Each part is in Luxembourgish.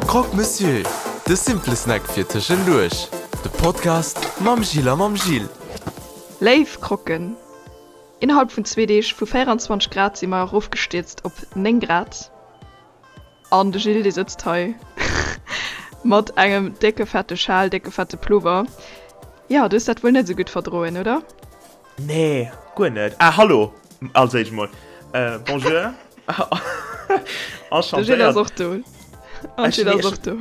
Croque Monsieur, de simple Snack fir tëschenduerch. De Podcast mam Jill a mam Gilles. Léif Croquen, innerhalb vun zwee Deeg vu 24 Grad si mer erofgestierzt op 9 Grad. An de Gilles dee sëtzt hei mat engem décke fette Schal, décke fette Plover. Jo, du hues dat wuel net esou gutt verdroen, oder? Nee, guer net. Ah, hallo als éischt mol. Äh, bonjour. De Gilles ass och do. An Gilles ass och do.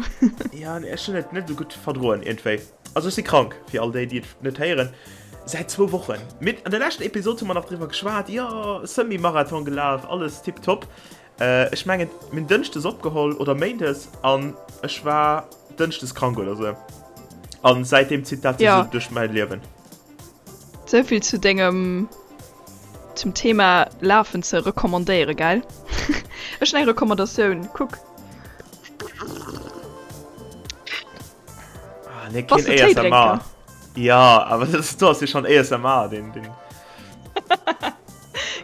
Ja, nee, ech hunn et net esou gutt verdroen iergendwéi. Also ech si krank, fir all déi, déi et net héieren. Säit zwou Wochen. Mit an der leschten Episod hu mer nach driwwer geschwat, jo, Semi-Marathon gelaf, alles tipptopp. Äh, ech mengen, mir hunn dënschdes opgeholl oder méindes an ech war dënschdes krank oder sou. An säitdeem zitt dat sech Ja. esou duerch mäi Liewen. Souvill zu dengem zum Thema Lafen ze recommandéieren, gell? Ech hunn eng Recommandatioun, kuck. Ah, nee, Bass keen du ASMR. Téidrénker? Ja, awer dat do ass jo schon ASMR, den, den.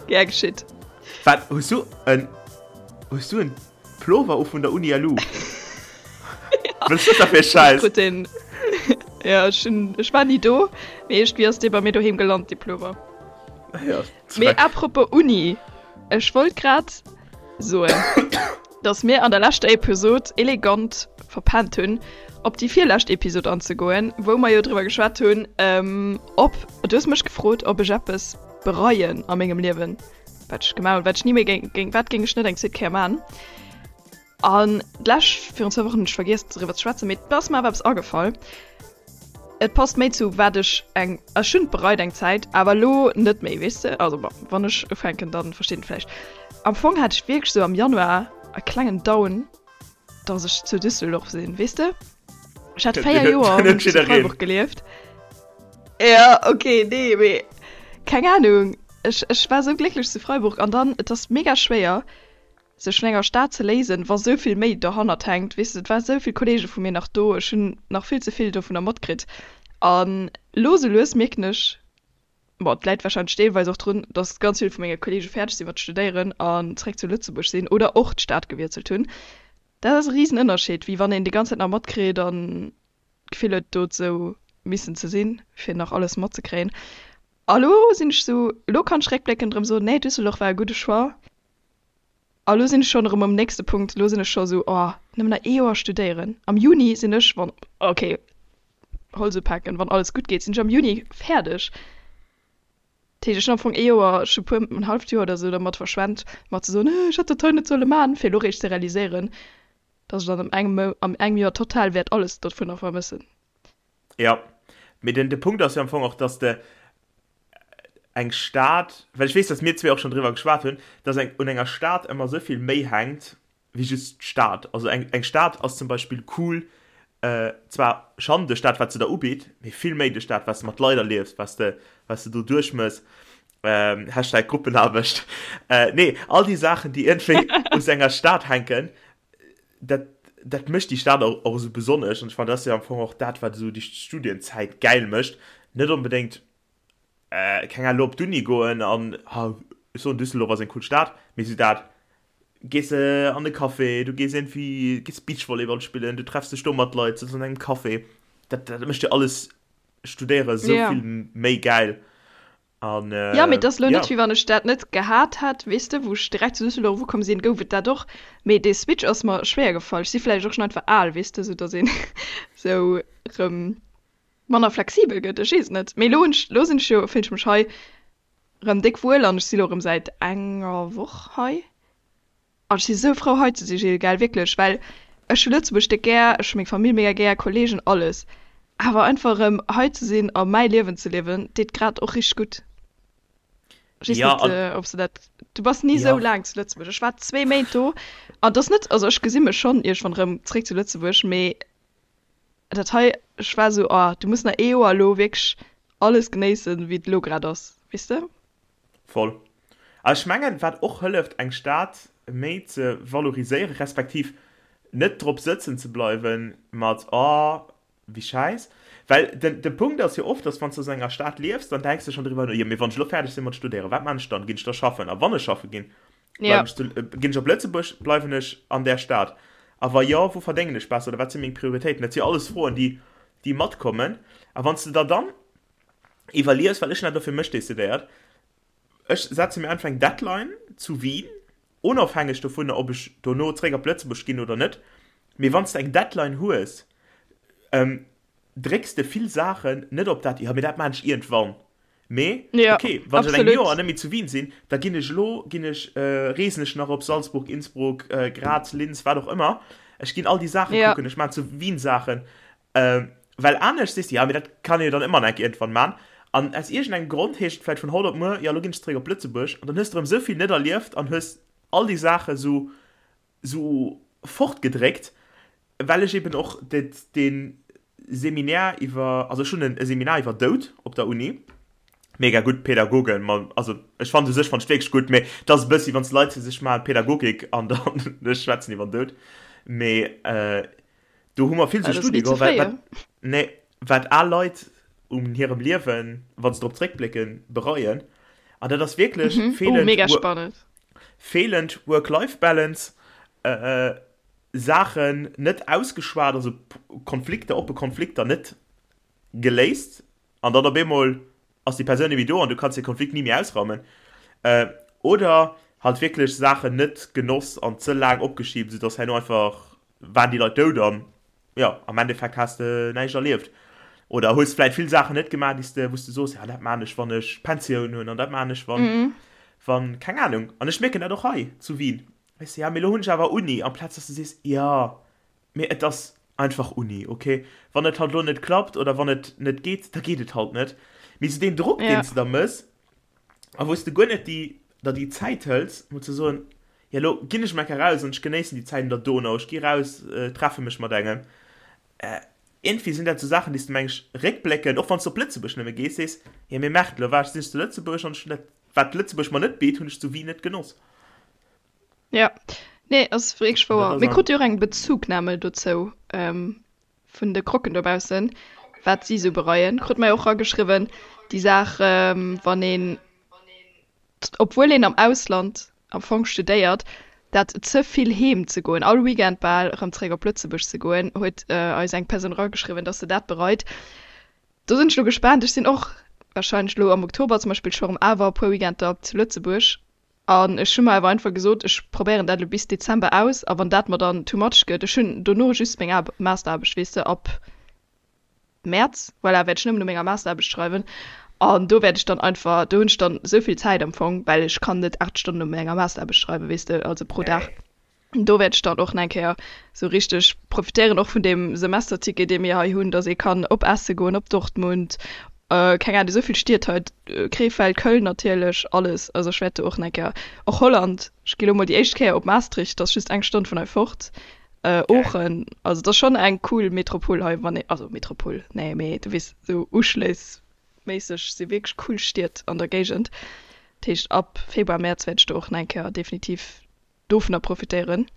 Gär geschitt. Wat, hues du en, hues du en Plover u vun der Uni LU? Was ist das da fir e Schäiss? Krut den, ja, ech hunn, ech war ni do, mee iergendwéi ass dee bei mir doheem gelant, dee Plover. Ja, Mee Dreck. apropos Uni, ech wollt grad soen, dass mir an der leschter Episod elegant verpennt hunn, op déi virlescht Episod anzegoen, wou mer jo driwwer geschwat hunn, ähm, ob, du hues mech gefrot, ob ech eppes bereien a mengem Liewen, wat ech gemaach hunn, wat ech ni méi géing, géing, wat géing ech net eng zweet Kéier man. An d'lescht, virun zwou Wochen hunn ech vergiess driwwer ze schwätzen, mee et ass mer awer eppes agefall. Et passt méi zu wat ech eng, ech hunn et bereit eng Zäit, awer elo net méi, weess de. Also bon, wann ech ufänken, dann versteet een et vläicht. Am Fong hat ech wierklech sou am Januar e klengen Down, dass ech zu Düsseldorf sinn, weess de. Ech hat 4 Joer hunn ech zu Freiburg gelieft. Ja, okay, nee, mee keng Ahnung, ech, ech war sou glécklech zu Freiburg an dann, et ass mega schwéier, sech vun enger Stad ze léisen, wa sou vill méi dohannert hänkt, weess de, et war sou vill Kollege vu mir nach do, ech hunn nach vill ze vill dovunner matkritt an lo sou lues mierken ech, bon, et läit warscheinlech deelweis och drun, dass ganz vill vu menge Kollege fäerdeg si mat studéieren an zréck zu Lëtzebuerg sinn oder och d'Stad gewiesselt hunn, dat ass e risen Ënnerscheed, wéi wann een déi ganz Zäit nach matkritt an d'Gefill huet do sou missen ze sinn, fir nach alles matzekréien. A lo sinn ech sou, lo kann ech réckbléckend erëm soen, nee, Düsseldorf war e gudde Choix. A lo sinn ech schonn erëm um nächste Punkt, lo sinn ech scho sou, oh, nëmmen nach ee Joer studéieren. Am Juni sinn ech, wann, ok, Holz upaken, wann alles gutt geet, sinn ech am Juni fäerdeg. Dat heescht, ech hunn am Fong ee Joer, ech hu puer, en halleft Joer oder sou dermat verschwent, mer ze soen, ech hätt dat hei net solle man, fir elo réischt ze realiséieren, dass ech dann am engem Mou, am engem Joer total wäert alles dovunner vermëssen. Jo, mee den, de Punkt ass jo am Fong och, dass de eng Stad, well ech weess, dass mir zwee och schonn driwwer geschwat hunn, dass eng, un enger Stad ëmmer esou vill méi hänkt wéi just d'Stad. Also eng, eng Stad ass zum Beispill cool, zwar schonn duerch dat, wat se der ubitt, mee vill méi duerch dat, wat s de mat Leit erliefs, wat s de, wat s de do duerchmëss, Hashtag Gruppenaarbecht, nee, all déi Saachen, déi iergendwéi u sou enger Stad hänken, dat, dat mécht déi Stad och, och esou besonnesch. An ech fannen, dat ass jo am Fong och dat, wat esou déi Studienzäit gäil mécht. Net onbedéngt, äh, keng Ahnung, elo op d'Uni goen an, ha, ech soen, Düsseldorf ass eng cool Stad, mee esou dat, gees de an e Café, du gees iergendwéi, gees Beachvolleyball spillen, du treffs dech do mat Leit, sëtz an engem Café. Dat, dat mécht jo alles Studéiere esou Ja. vill méi gäil. An, äh, ja, mee et ass lo net, wéi wann ech dat net gehat hätt, weess de, wou ech direkt zu Düsseldorf ukomm sinn, gouf et dat och. Mee dee Switch ass mer schwéier gefall. Ech si vläicht och schonn einfach al, weess de, sou datt een sou rëm manner flexibel gëtt. Ech weess et net. Mee lo hunn ech, lo sinn ech jo, fillen ech mech hei rëm déck wuel an ech si lo rëm säit enger Woch hei. An ech si sou frou hei ze si Gilles, gell, wierklech, well ech hu Lëtzebuerg déck gär, ech hu meng Famill mega gär, Kollegen, alles. Awer einfach erëm hei ze sinn a mäi Liewen ze liewen, deet grad och richteg gutt. Ech weess Ja, net, an ob s de dat, du bass ni sou ja. laang zu Lëtzebuerg. Ech war zwee Méint do an et ass net, also ech gesi mech schonn iergendwann erëm zréck zu Lëtzebuerg, mee dat hei, ech war sou, oh, du muss nach ee Joer elo wierklech alles genéissen, wéi et elo grad ass, weess de? Voll. A ech mengen, wat och hëlleft, eng Stad méi ze valoriséieren, respektiv net drop sëtzen ze bleiwen mat, oh, wéi schäiss. Well den, de Punkt ass jo oft, dass wann s du an enger Stad liefs, dann denks de schonn driwwer no, jo, mee wann ech elo fäerdeg sinn mat studéieren, wat maan ech dann? Ginn ech da schaffen? A wann ech schaffe ginn, Ja. bleiwen ech zu, ginn ech op Lëtzebuerg, bleiwen ech an där Stad? A wa jo, wou verdéngen ech besser oder wat si meng Prioritéiten? Dat si alles Froen, déi, déi matkommen. A wann s de der dann iwwerlies, well ech hunn dat elo fir mech decidéiert, ech setze mir einfach eng Deadline zu Wien, onofhängeg dovunner, ob ech dono zréck op Lëtzebuerg ginn oder net, mee wann s de eng Deadline hues, drécks de vill Saachen net op dat, jo, mee dat maan ech iergendwann. Mee, Ja, okay, wann ech an engem absolut. Joer net méi zu Wien sinn, da ginn ech elo, ginn ech, reesen ech nach op Salzburg, Innsbruck, Graz, Linz, wat och ëmmer. Ech ginn all déi Saache Ja. kucken, ech maan zu Wien Saachen. Well anescht sees de, jo, mee dat kann ee jo dann ëmmer nach eng Kéier iergendwann maan. An aus iergendengem Grond heescht et vläicht vun haut op muer, jo, elo ginn ech zeréck op Lëtzebuerg. An dann hues de erëm esou vill net erlieft an hues all déi Saache sou, sou fortgedréckt, well ech eben och dee Seminär iwwer, also ech hunn e Seminar iwwer Doud op der Uni, mega gutt Pädagogen, ma also ech fannen u sech fannen ech wierklech gutt, mee et ass e bëssi wann s Leit sech maachen Pädagogik an dann ech schwätzen iwwer den Doud, mee do hu mer vill sou Dat ass Studie ni ze geholl, wat fréi. wat nee wat al Leit un hirem Liewen, wa se drop zréckblécken, bereien an dat ass wierklech Mhm. Oh, feelend mega spannend. Feelend Work-Life-Balance, Saachen net ausgeschwat, also Konflikter, oppe Konflikter net geléist an dann op eemol ass déi Persoun net méi do an du kanns de Konflikt ni méi ausraumen. Oder halt wierklech Saachen net genoss an ze laang opgeschibt, soudass herno einfach waren déi Leit dout an jo, am Endeffekt has de näischt erlieft. Oder hues vläit vill Saachen net gemaach, déi s de, wou s de soos, ja dat maan ech, wann ech Pensioun hunn an dat maan ech, wann, wann, keng Ahnung. An ech mierken dat och hei zu Wien, weess de, ja mee elo hunn ech awer Uni, amplaz dass de sees, jo mee et ass einfach Uni, okay, wann et halt elo net klappt oder wann et net geet, da geet et halt net. Mee esou deen Drock, deen s de da mëss a wou s de guer net déi, der déi Zäit hëls, mol ze soen, Jo, elo ginn ech mol enker raus an ech genéissen déi Zäit un der Donau, ech gi raus, treffe mech mat engem. Iergendwéi sinn dat esou Saachen, déi s de, meng ech, réckbléckend, och wann s de op Lëtzebuerg nëmme gees, sees, Jo, mee Merde, elo war ech, sinn ech zu Lëtzebuerg an ech hunn dat, wat Lëtzebuerg mer net bitt, hunn ech zu Wien net genoss. Jo, nee, ass wierklech An dat wouer. ass Mir an. krute jo och eng Bezugnahme dozou vun de Croquen dobaussen, wat si esou bereien. Krute mer jo och erageschriwwen, déi Saach, wann een obwuel een am Ausland am Fong studéiert, dat ze vill heem ze goen, all Weekend bal erëm zeréck op Lëtzebuerg ze goen, huet eis eng Persoun erageschriwwen, dass se dat bereit. Do sinn ech elo gespaant. Ech sinn och warscheinlech elo am Oktober zum Beispill scho erëm awer e puer Weekender zu Lëtzebuerg an ech hu mer awer einfach gesot, ech probéieren dat elo bis Dezember aus a wann dat mer dann too much gëtt, ech hunn dono just meng Masteraarbecht, weess de, ab Mäerz, voilà, wäert ech nëmmen u menger Masteraarbecht schreiwen an do wäert ech dann einfach, do hunn ech dann esou vill Zäit am Fong, well ech kann net 8 Stonnen u menger Masteraarbecht schreiwen, weess de, also pro Dag. Do wäert ech dann och nach eng Kéier esou richteg profitéieren, och vun deem Semesterticket, dee mir hei hunn, dass ee kann op Essen goen, op Dortmund, keng Ahnung, esou vill Stied hei, Krefeld, Köln natierlech, alles. Also ech wäert do och nach eng Kéier, och Holland, ech gi lo mol déi éischt Kéier op Maastricht, dat ass just eng Stonn vun hei fort. Oochen, also et ass schonn eng cool Metropol hei, wann ee, also Metropol, nee, mee du weess, esou uschléissméisseg si wierklech cool Stied an der Géigend. Dat heescht ab Februar, Mäerz wäert ech do och nach eng Kéier definitiv dovunner profitéieren.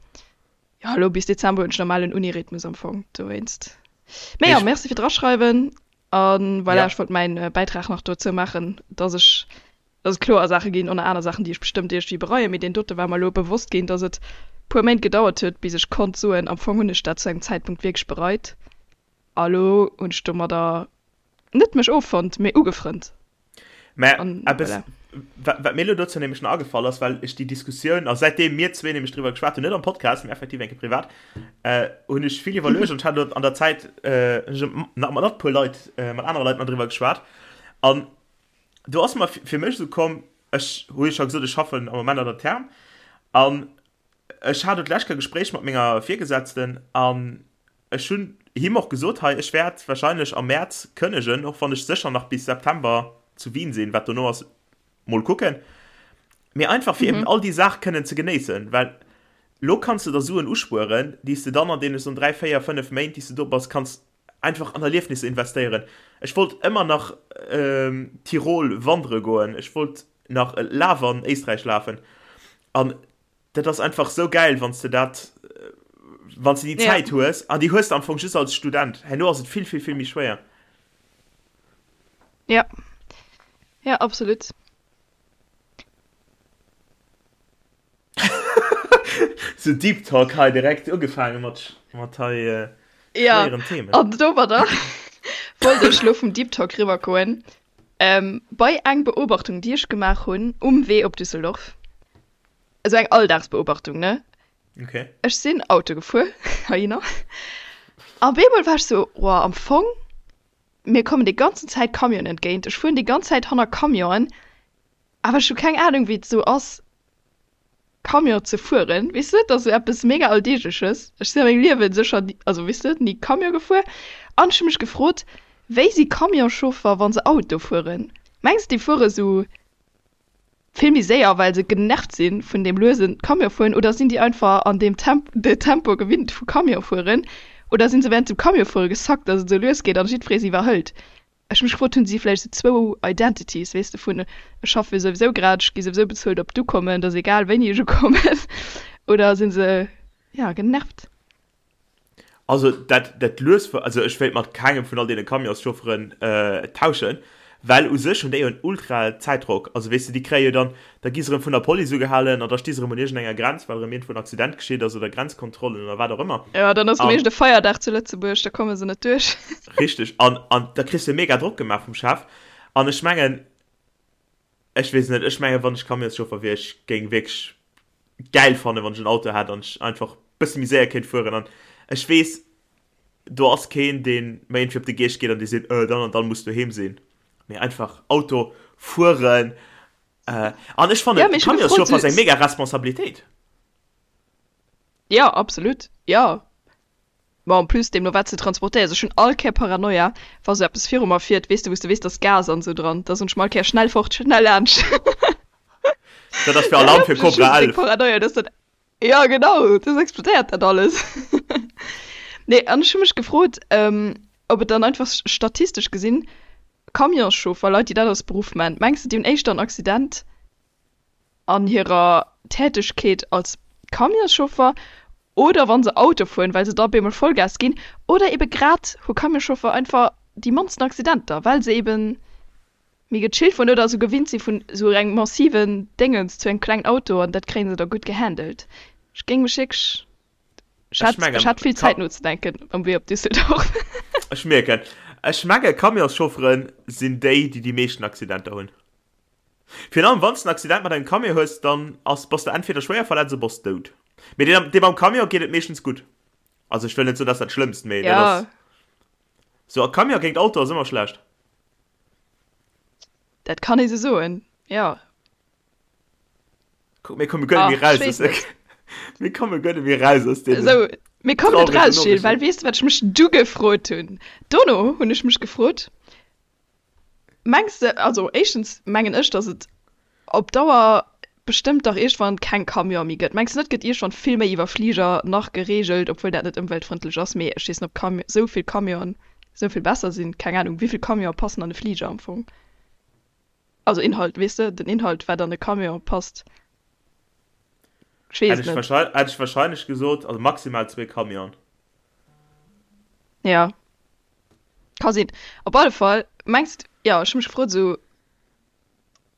Jo, elo bis Dezember hunn ech normalen Uni-Rhythmus am Fong, dowéinst. Mee jo, merci fir d'Raschreiwen a voilà, ech wollt mäin Bäitrag nach dozou maachen, dass ech dass et kloer Saache ginn, ënner aner Saachen, déi ech bestëmmt iergendwéi bereien, mee deen dote war mer elo bewosst ginn, dass et puer Méint gedauert huet, bis ech konnt soen, am Fong hunn ech dat zu engem Zäitpunkt wierklech bereit a elo hunn ech domadder net mech offonnt, mee ugefrënnt. Mä An eppes, voilà. wat, wat mir elo dozou nämlech nach agefall ass, well ech déi Diskussioun, a säitdeem mir zwee nämlech driwwer geschwat hunn, net am Podcast, mee effektiv eng Kéier privat, hunn ech vill iwwerluecht an ech hat elo an der Zäit, hunn ech nach mat e puer Leit, mat anere Leit nach driwwer geschwat an do ass mer fir mech esou komm, ech hu jo scho gesot, ech schaffen am Moment an der Therm an ech hat elo d'lescht Kéier e Gespréich mat menger Virgesetzten an ech hunn him och gesot, hei ech wäert wahrscheinlech am Mäerz kënnegen, och wann ech sécher nach bis September zu Wien sinn, wat dono ass, mol kucken, mee einfach fir eben all déi Saach kënnen ze genéissen, well lo kanns de der Suen uspueren, déi s de dann an deene soen 3, 4, 5 Méint, déi s de do bass, kanns einfach an Erliefnisser investéieren. Ech wollt ëmmer nach Tirol wandere goen, ech wollt nach Laf an Éisträich lafen an dat ass einfach sou gäil, wann s de dat, wann s de déi Zäit hues an déi hues de am Fong just als Student. Herno ass et vill, vill, vill méi schwéier. Ja, ja absolut. Sou Deep Talk hei direkt ugefaange mat, mat hei äh, Ja, schwéieren Themen. an domadder wollt ech lo vum Deep Talk riwwergoen ähm, bei eng Beobachtung, déi ech gemaach hunn um Wee op Düsseldorf. Esou eng Alldagsbeobachtung, ne? Okay. Ech sinn Auto gefuer heihinner a bemol war ech sou, Woah, am Fong, mir kommen déi ganzen Zäit Camionen entgéint, ech fueren déi ganz Zäit hanner Camionen, awer ech hu keng Anung, wéi et esou ass, Camion ze fueren, weess de, dat ass esou eppes mega Alldeegleches. Ech sinn a mengem Liewen sécher ni, also weess de, ni Camion gefuer an ech hu mech gefrot, wéi si Camionschauffer, wa se Auto fueren? Mengs de, déi fuere sou vill méi séier, well se genervt si vun deem luesen Camion fueren oder sinn déi einfach an deem Temp, de Tempo gewinnt vu Camion fueren oder sinn se während dem Camion fuere gesackt, dass et esou lues geet an jiddweree se iwwerhëlt? Ech hu mech gefrot, hunn si vläicht esou zwou Identities, weess de, vun ech schaffe souwisou grad, ech gi souwisou bezuelt op d'Ukommen, et ass egal wéini ech ukommen, oder si se, jo, genervt? Also dat, dat lues, also ech wéilt mat kengem vun all deene Camionschaufferen tauschen, well u sech hunn déi jo en ultra Zäitdrock. Also weess de, déi kréie jo dann, da gi se erëm vun der Police ugehalen an da sti se erëm un iergendenger Grenz, well erëm iergendwou en Accident geschitt ass oder Grenzkontrollen oder wat och ëmmer. Jo, dann ass erëm iergend e Feierdag zu Lëtzebuerg, da komme se net duerch. Richteg. An, an da kriss de mega Drock gemaach vum Chef. An ech mengen, ech weess net, ech mengen, wann ech Camionschauffer wier, ech géing wierklech gäil fannen, wann ech en Auto hätt an ech einfach bësse méi séier kéint fueren. An ech weess, do ass keen, dee mer iergendwéi op de Geescht geet an dee seet, Äh, dann an dann muss doheem sinn. Mee einfach Auto fueren. Äh, an ech fannen, Ja, mee ech hu gefrot, Camionschauffer ass so eng mega Responsabilitéit. Ja, absolut, jo. Ma en plus, deemno wat se transportéieren. Also ech hunn all Kéier Paranoia, wa sou eppes viru mer fiert, weess de, wou s de weess, dass Gas an esou dran, da soen ech mer all Kéier, schnell fort, schnell laanscht. Dat ass fir Alarm fir Ech hu Cobra déck 11. Paranoia, dass dat, jo genau, dass explodéiert dat alles. Nee, an ech hu mech gefrot, ob et dann einfach statistesch gesinn Camionschauffer, Leit, déi dat als Beruff man, mengs de, déi hunn éischter en Accident an hirer Tätegkeet als Camionschauffer oder wa se Auto fueren, well se da op eemol Vollgas ginn, oder ebe grad hu Camionschauffer einfach déi mannsten Accidenter, well se ebe méi gechillt fueren oder esou gewinnt si vun esou engem massiven Déngens zu engem klengen Auto an dat kréie se da gutt gehandelt. Ech géing mech wierklech, ech Ech hat, mengen, ech hat vill Ka Zäit nozedenken um Wee op Düsseldorf. Ech mierken, ech menge Camionschauffere sinn déi, déi déi meeschten Accidenter hunn. Virun allem wann s de en Accident mat engem Camion hues, dann ass, bass de entweder schwéier verletzt oder bass dout. Mee deem, deem am Camion geet et meeschtens gutt. Also ech wëll net soen, dat ass dat Schlëmmst, mee dat Ja. ass sou, a Camion géint Auto ass ëmmer schlecht. Dat kann ee sou soen, jo. Kuck, mir komme guer net méi Ach, raus ech aus weess der, net. mir komme guer net méi raus aus deenen Sou, mir kommen net trauregen raus, Gilles, well Noriichten. weess de, wat ech mech du gefrot hunn? Dono hunn ech mech gefrot, Mengs de, also éischtens mengen ech, datt et op Dauer bestëmmt dach iergendwann keng Camione méi gëtt. Mengs de net, gëtt iergendwann vill méi iwwer Fliger nach gereegelt, obwuel dat net ëmweltfrëndlech ass, mee ech weess net, ob Cam esou vill Camionen esou vill besser sinn, keng Anung, wéi vill Camione passen an e Fliger am Fong? Also Inhalt, weess de, den Inhalt wat an e Camion passt, ech weess Hätt et ech net. wahrscheinlech, hätt ech wahrscheinlech gesot, also maximal zwee Camionen. Ja. Ka sinn. Op alle Fall, mengs de, jo, ech hu mech gefrot esou,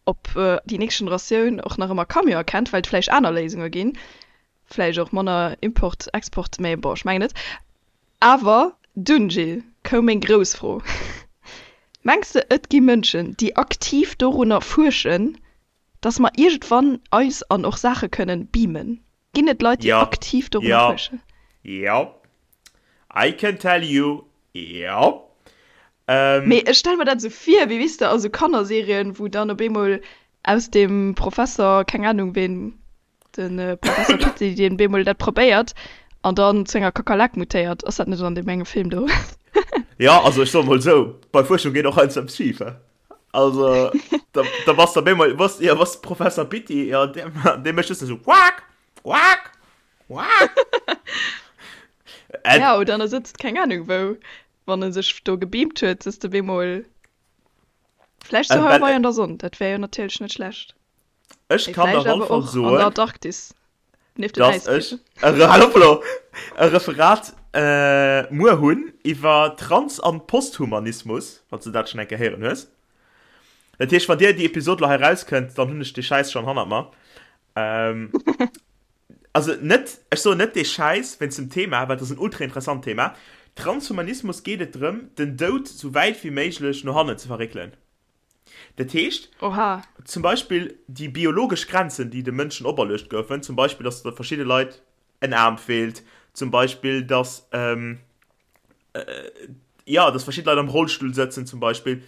ob déi nächst Generatioun och nach ëmmer Camion erkennt, well et vläicht aner Léisunge ginn, vläicht och manner Import, Export, mä bon, ech mengen net. Awer dunn, Gilles, koum meng grouss Fro, Mengs de, et gi Mënschen, déi aktiv dorunner fuerschen, dass mer iergendwann eis an och Saache kënnen beamen? Ginn et Leit, déi Jo, aktiv dorunner jo, fuerschen? jo. I can tell you, jo. Ähm. Mee ech stelle mer dat esou vir, wéi, weess de, a sou Kannerserien, wou dann op eemol aus dem Professer, keng Ahnung ween, de Professer Pitti, deen bemol dat probéiert an dann zu enger Kakerlak mutéiert. Ass dat net an deem engem Film do? Jo, also ech soe mol esou, bei Fuerschung geet och heiansdo eppes schif, he. Also, da, da bass de op eemol, bass, jo, bass Professer Pitti, jo, dee, dee mécht just esou Quaak, quaak, quaak. Ja, oder en sëtzt keng Ahnung wou, wann e sech do gebeamt huet, sëtzt e bemol vläicht zu Hawaii an der Sonn, dat wär jo natierlech net schlecht. Ech Mee kann der vläicht op alle awer Fall och an der soen, Antarktis, nieft den dass ech Äisbieren. e, Re- hal op elo, e Referat äh, muer hunn iwwer Trans an Posthumanismus, wann s de dat schonn eng Kéier héieren hues. Dat heescht, wann dir déi Episod elo hei erauskënnt, dann hunn ech dee Schäiss schonn hannert mer. Ähm. Also net, ech soen net dee Schäiss wéinst dem Thema, well et ass en ultra interessant Thema. Transhumanismus geet et drëm, den Doud sou wäit wéi méiglech no hannen ze verréckelen. Dat heescht, Oha. zum Beispill déi biologesch Grenzen, déi de Mënschen operluecht goufen, zum Beispill, dass verschidde Leit en Aarm feelt, zum Beispill, dass, jo, dass verschidde Leit am Rollstull sëtzen, zum Beispill,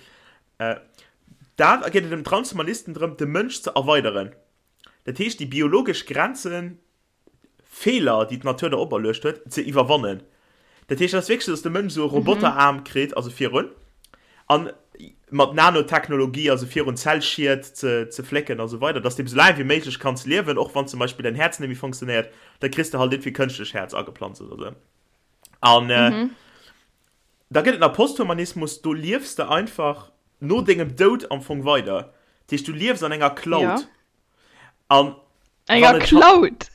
dat geet et dem Transhumanisten drëm, de Mënsch ze erweideren. Dat heescht, déi biologesch Grenzen, Feeler, déi d'Natur der operluecht huet, ze iwwerwannen. Dat heescht, dat ass wierklech esou, dass de Mënsch esou e Roboteraarm kritt, also virun, an mat Nanotechnologie, also virun Zellschied ze, ze flécken a sou weider, dass de esou laang wéi méiglech kanns liewen, och wann zum Beispill däin Häerz net méi funktionéiert, da kriss de halt iergendwéi kënschtlech Häerz ageplanzt oder sou. An da gëtt et nach Posthumanismus, do liefs de einfach no dengem Doud am Fong weider. Dat heescht, du liefs an enger Cloud. Ja. An enger Cloud?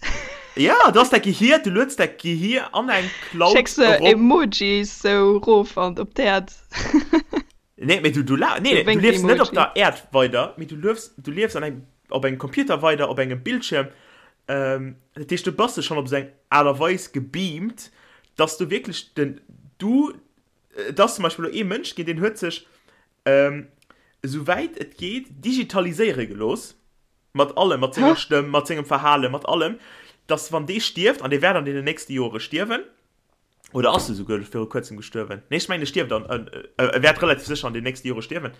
Ja, du hast däi Gehier, du lueds däi Gehier an eng Cloud Schécks de Emojis sou rof an op d'Äerd? Nee, mee du, du, la, nee, du liefs net op der Äerd weider, mee du liefs, du liefs an engem, op engem Computer weider, op engem Bildschierm. Ähm, dat heescht, du bass schonn op esou eng Aart a Weis gebeamt, dass du wierklech den, du, et ass zum Beispill elo ee Mënsch ginn, deen huet sech, ähm, esou wäit et geet, digitaliséiere gelooss, mat allem, mat senger Stëmm, mat sengem Verhalen, mat allem, dass wann dee stierft, an dee wäert an deenen nächste Jore stierwen, oder ass e souguer viru kuerzem gestuerwen? Nee, ech mengen, e stierft an, e wäert relativ sécher an den nächste Jore stierwen,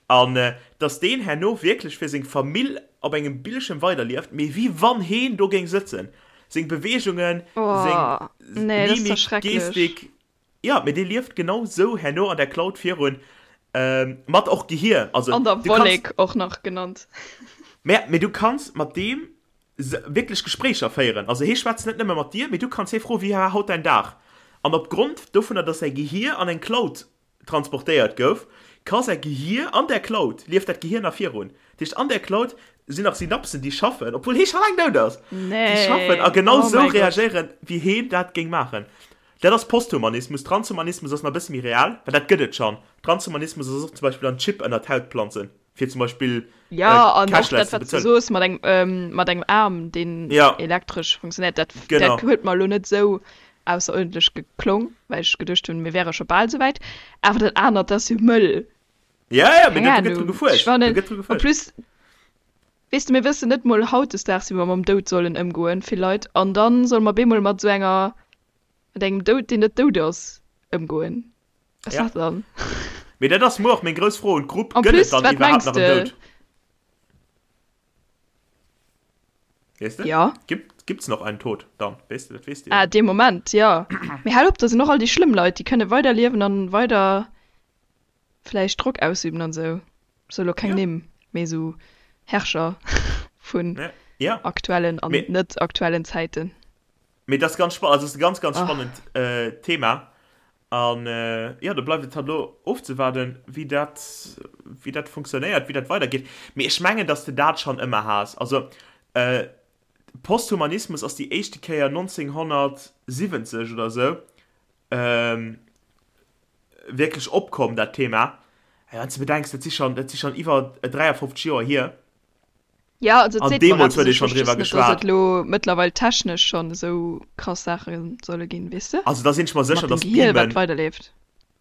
an dass deen herno wierklech fir seng Famill op engem Bildschirm weiderlieft, mee wéi wann heen do géing sëtzen, seng Beweegungen, seng Mimik, Gestik, Jo, mee dee lieft genau sou herno an der Cloud virun, mat och Gehier. Also, an der Wollek och nach genannt. Mä, mee du kanns mat deem wierklech Gespréicher féieren. Also hee schwätzt net nëmme mat dir, mee du kanns hee froen, wéi war haut däin Dag? An opgrond dovunner, dass säi Gehier an eng Cloud transportéiert gouf, ka säi Gehier an där Cloud, lieft dat Gehier nach virun. Dat heescht, an där Cloud sinn nach Synapsen, déi schaffen, obwuel hee scho laang dout ass, déi schaffen a genau sou reagéieren, wéi heen dat géing maachen. Dat ass Posthumanismus. Transhumanismus ass nach e bësse méi real, well dat gëtt et schonn. Transhumanismus ass och zum Beispill an Chip ënner d'Haut planzen, fir zum Beispill Jo, an och dat, cashless ze wat s de bezuelen. soos mat engem, mat engem Aarm, deen Ja. elektresch funktionéiert, dat, dat Genau. huet mer elo net esou ausseruerdentlech geklong, well ech geduecht hunn, mir wäre scho bal esou wäit. Awer dat anert, dat ass jo mëll. Ja, ja, mee Keng do gëtt dru Ahnung. Ech gefuerscht. Do fannen, gëtt dru en gefuerscht. plus, weess de, mir wëssen net mol hautdesdaags, wéi mer mam Doud sollen ëmgoen, vill Leit, an dann solle mer bemol mat esou enger Mat engem Doud, deen net dout ass, ëmgoen. Was Ja. dat dann? Mee dat ass muer och meng grouss Fro un d'Grupp, En Gëtt et plus, dann wat iwwerhaapt mengs nach en de? Doud? Weess de? Ja. Gibt, gibt's noch einen Tod dann? Weess de, dat weess de jo Ah, net. dee Moment, jo. Mee hal op, da sinn och all déi schlëmm Leit, déi kënne weider liewen an weider vläicht Drock ausüben an esou. Sou elo keng Ja. Nimm, mee esou Herrscher vun Ja, ja. aktuellen an Mee. net aktuellen Zäiten. Mee dat ass ganz spannend, also ass e ganz, ganz Ach. spannend Thema. An jo, do bleift et halt elo ofzewaarden, wéi dat, wéi dat funktionéiert, wéi dat weidergeet. Mee ech mengen, datt s de dat schonn ëmmer has. Also Posthumanismus ass déi éischte Kéier 1970 oder esou wierklech opkomm, dat Thema. Wann s de bedenks, dat si schonn, dat si schonn iwwer 53 Joer hier. Ja, also et An seet mer deemools eppes, huet ee ech schonn wosst just driwwer net, dass geschwat. et elo mëttlerweil technesch schonn esou krass Saache solle ginn, weess de? Also da sinn ech mer sécher, Mat dem dass Gehier, wat Beamen, weiderleeft.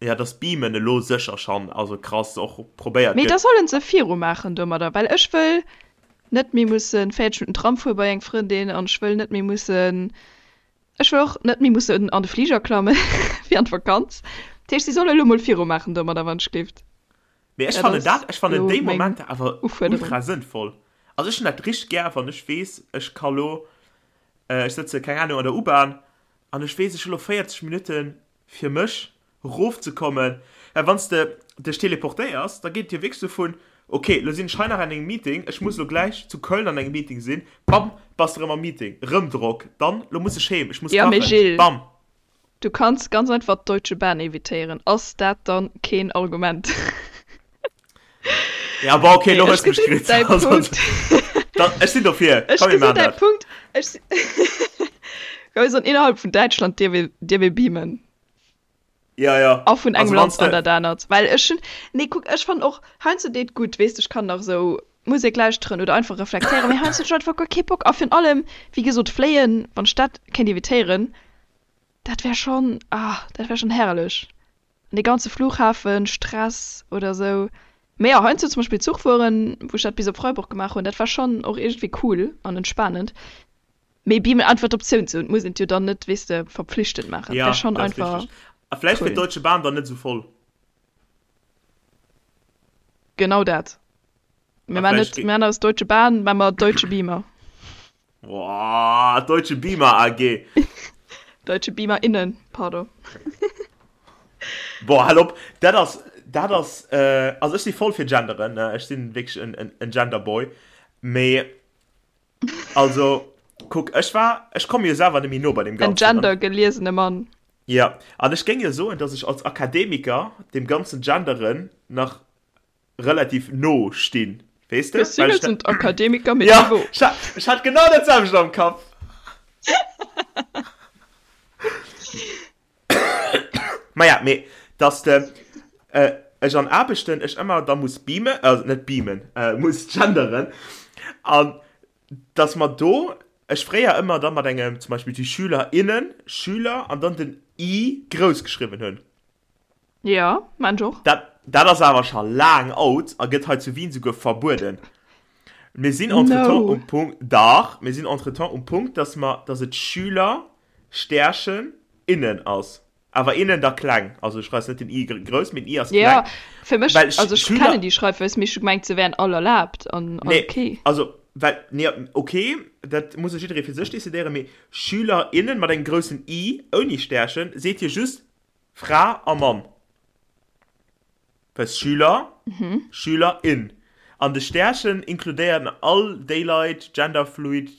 ja, dass Beamen elo sécher schonn, also krass och probéiert Mee da gëtt. sollen se virumaachen domadder, well ech wëll net méi mussen 40 Minutten Tram fuere bei eng Frëndin an ech wëll net méi mussen, ech wëll och net méi mussen an de Fliger klamme fir an d'Vakanz. Dat heescht, si solle elo mol virumaachen domadder, wann ech gleeft. Mee ech Dat fannen ass dat, ech fannen elo déi meng Momenter awer Ufuerderung. ultra sënnvoll. Also ech hunn dat richteg gär, wann ech weess, ech ka lo, ech sëtze, keng Ahnung, an der U-Bahn an ech weess, ech hu lo 40 Minutte fir mech erofzekommen. Well wann s de dech teleportéiers, da geet et jo wierklech sou vun, ok, lo sinn ech hei nach an engem Meeting, ech muss lo gläich zu Köln an engem Meeting sinn, bam, bass de erëm am Meeting, erëm Drock, dann, lo muss ech heem, ech muss Ja, mee kachen, Gilles, bam. Du kanns ganz einfach d'Deutsche Bahn evitéieren. Ass dat dann keen Argument? Ja, bon, okay, Nee, lo ech hues du mech gesinn kritt. däi Also, Punkt. da, ech sinn dofir. Ech Komm, mir gesinn maachen däi dat. Punkt. Ech si Komm, mir sollen innerhalb vun Däitschland dierf ee, dierf ee beamen. Ja, ja. A vun engem Also, wann Land s an de. dat anert. Well ech hunn, nee, kuck, ech fannen och heiansdo deet gutt, weess de, ech kann nach esou. Musek lauschteren oder einfach reflektéieren, mee heiansdo hunn ech einfach guer kee Bock. A virun allem, wéi gesot, fléien, wann ech dat kéint evitéieren, dat wär schonn, ah, dat wär schonn herrlech. An dee ganze Flughafen, Stress oder sou. Mee jo, heiansdo zum Beispill Zuch fueren, wou ech dat bis op Freiburg gemaach hunn, dat war schonn och iergendwéi cool an entspanend. Mee beamen einfach d'Optioun ze hunn, et muss een et jo dann net, weess de, verpflichtend maachen, Ja, wär schonn dat ass einfach richteg. A vläicht wier cool. d'Deutsche Bahn dann net esou voll. Genau dat. Mir A man vläicht net, mir man aus Deutsche Bahn, man mer Deutsche Beamer. Boah, Deutsche Beamer AG. Deutsche Beamer innen, pardon. Boah, hal op, dat ass, dat ass, äh, also ech si voll fir genderen, ne? Ech sinn wierklech en, en, en Genderboy. Mee, also, kuck, ech war, ech komme jo selwer net méi no bei deem En Ganzen. An, gendergeliesene Mann. ja, an ech géing jo soen, dass ech als Akademiker dem ganzen Genderen nach relativ no stinn, weess de? Mir Well ech sind Akademiker mit ja, Niveau. ech hat, ech hat genau dat selwecht am Kapp. Maja, mee dass de äh, ech an Aarbechten ech ëmmer da muss beamen, also net beamen, äh, muss genderen an dass mer do ech fréier ëmmer da mat engem zum Beispill die Schüler innen, Schüler an dann den i grouss geschriwwen hunn. Ja, maan ech och. Dat, dat ass awer scho laang out a gëtt hei zu Wien souguer verbueden. Mir sinn entretemps No. um Punkt, dach, mir sinn entretemps um Punkt, dass mer, dass et Schüler, Stärchen, innen ass. Awer innen da kleng. Also du schreifs net den i grouss, mee den i ass kleng. Ja, fir mech, Well also ech Schüler, kennen déi Schreifweis, mee ech hu gemengt, se wären all erlaabt an all nee, okay. also, well, nee, okay, dat muss jo jidderee fir sech decidéieren, mee Schüler, innen mat engem groussen i, ouni Stärchen, seet jo just Fra a Mann. Well Schüler, Schülerin. An de Stärchen inkludéieren all déi Leit, genderfluid,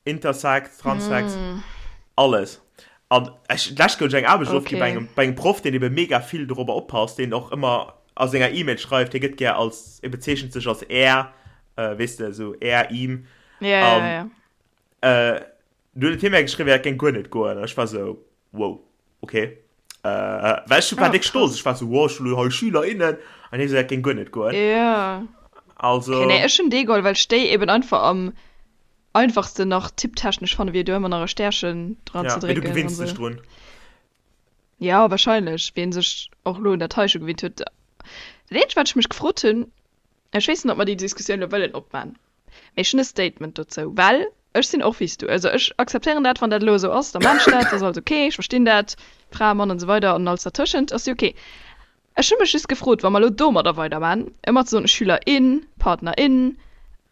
intersex, transsex, alles. An ech, d'lescht gouf ech eng Aarbecht ofginn bei engem, bei engem Proff, deen ebe mega vill dorobber oppasst, deen och ëmmer a senger E-Mail schreift, hie gëtt gär als, e bezeechent sech als er, weess de, esou er, ihm. Ja, ja, ja. An Du huet hie mär geschriwwen, dat géing guer net goen. An ech war sou, wow, okay. Äh, well ech war Oh, déck stolz. krass. Ech war sou, wow, ech hunn elo hei Schüler, innen. An hie sou, dat géing guer net goen. Ja. Also. Okay, nee, ech hunn dee geholl, well ech déi eben einfach am einfachsten nach tipptechnesch fannen, wéi do ëmmer nach e Stärchen dran Ja, ze mee du drécken an gewinns dech sou. drun. Ja, wahrscheinlech, wien sech och elo un dat hei scho gewinnt huet. Dat eenzegt, wat ech mech gefrot hunn, ech weess net, ob mer déi Diskussioun elo wëllen opman, Mee ech hunn e Statement dozou, well ech sinn och wéi s du. Also ech akzeptéieren dat, wann dat elo esou ass, da maan ech dat, dat ass alles ok, ech verstinn dat, Fra, Mann an esou weider an alles dertëschent ass jo ok. Ech hu mech just gefrot, wa mer elo domadder weidermaan, ëmmer ze soen Schüler in, Partner in,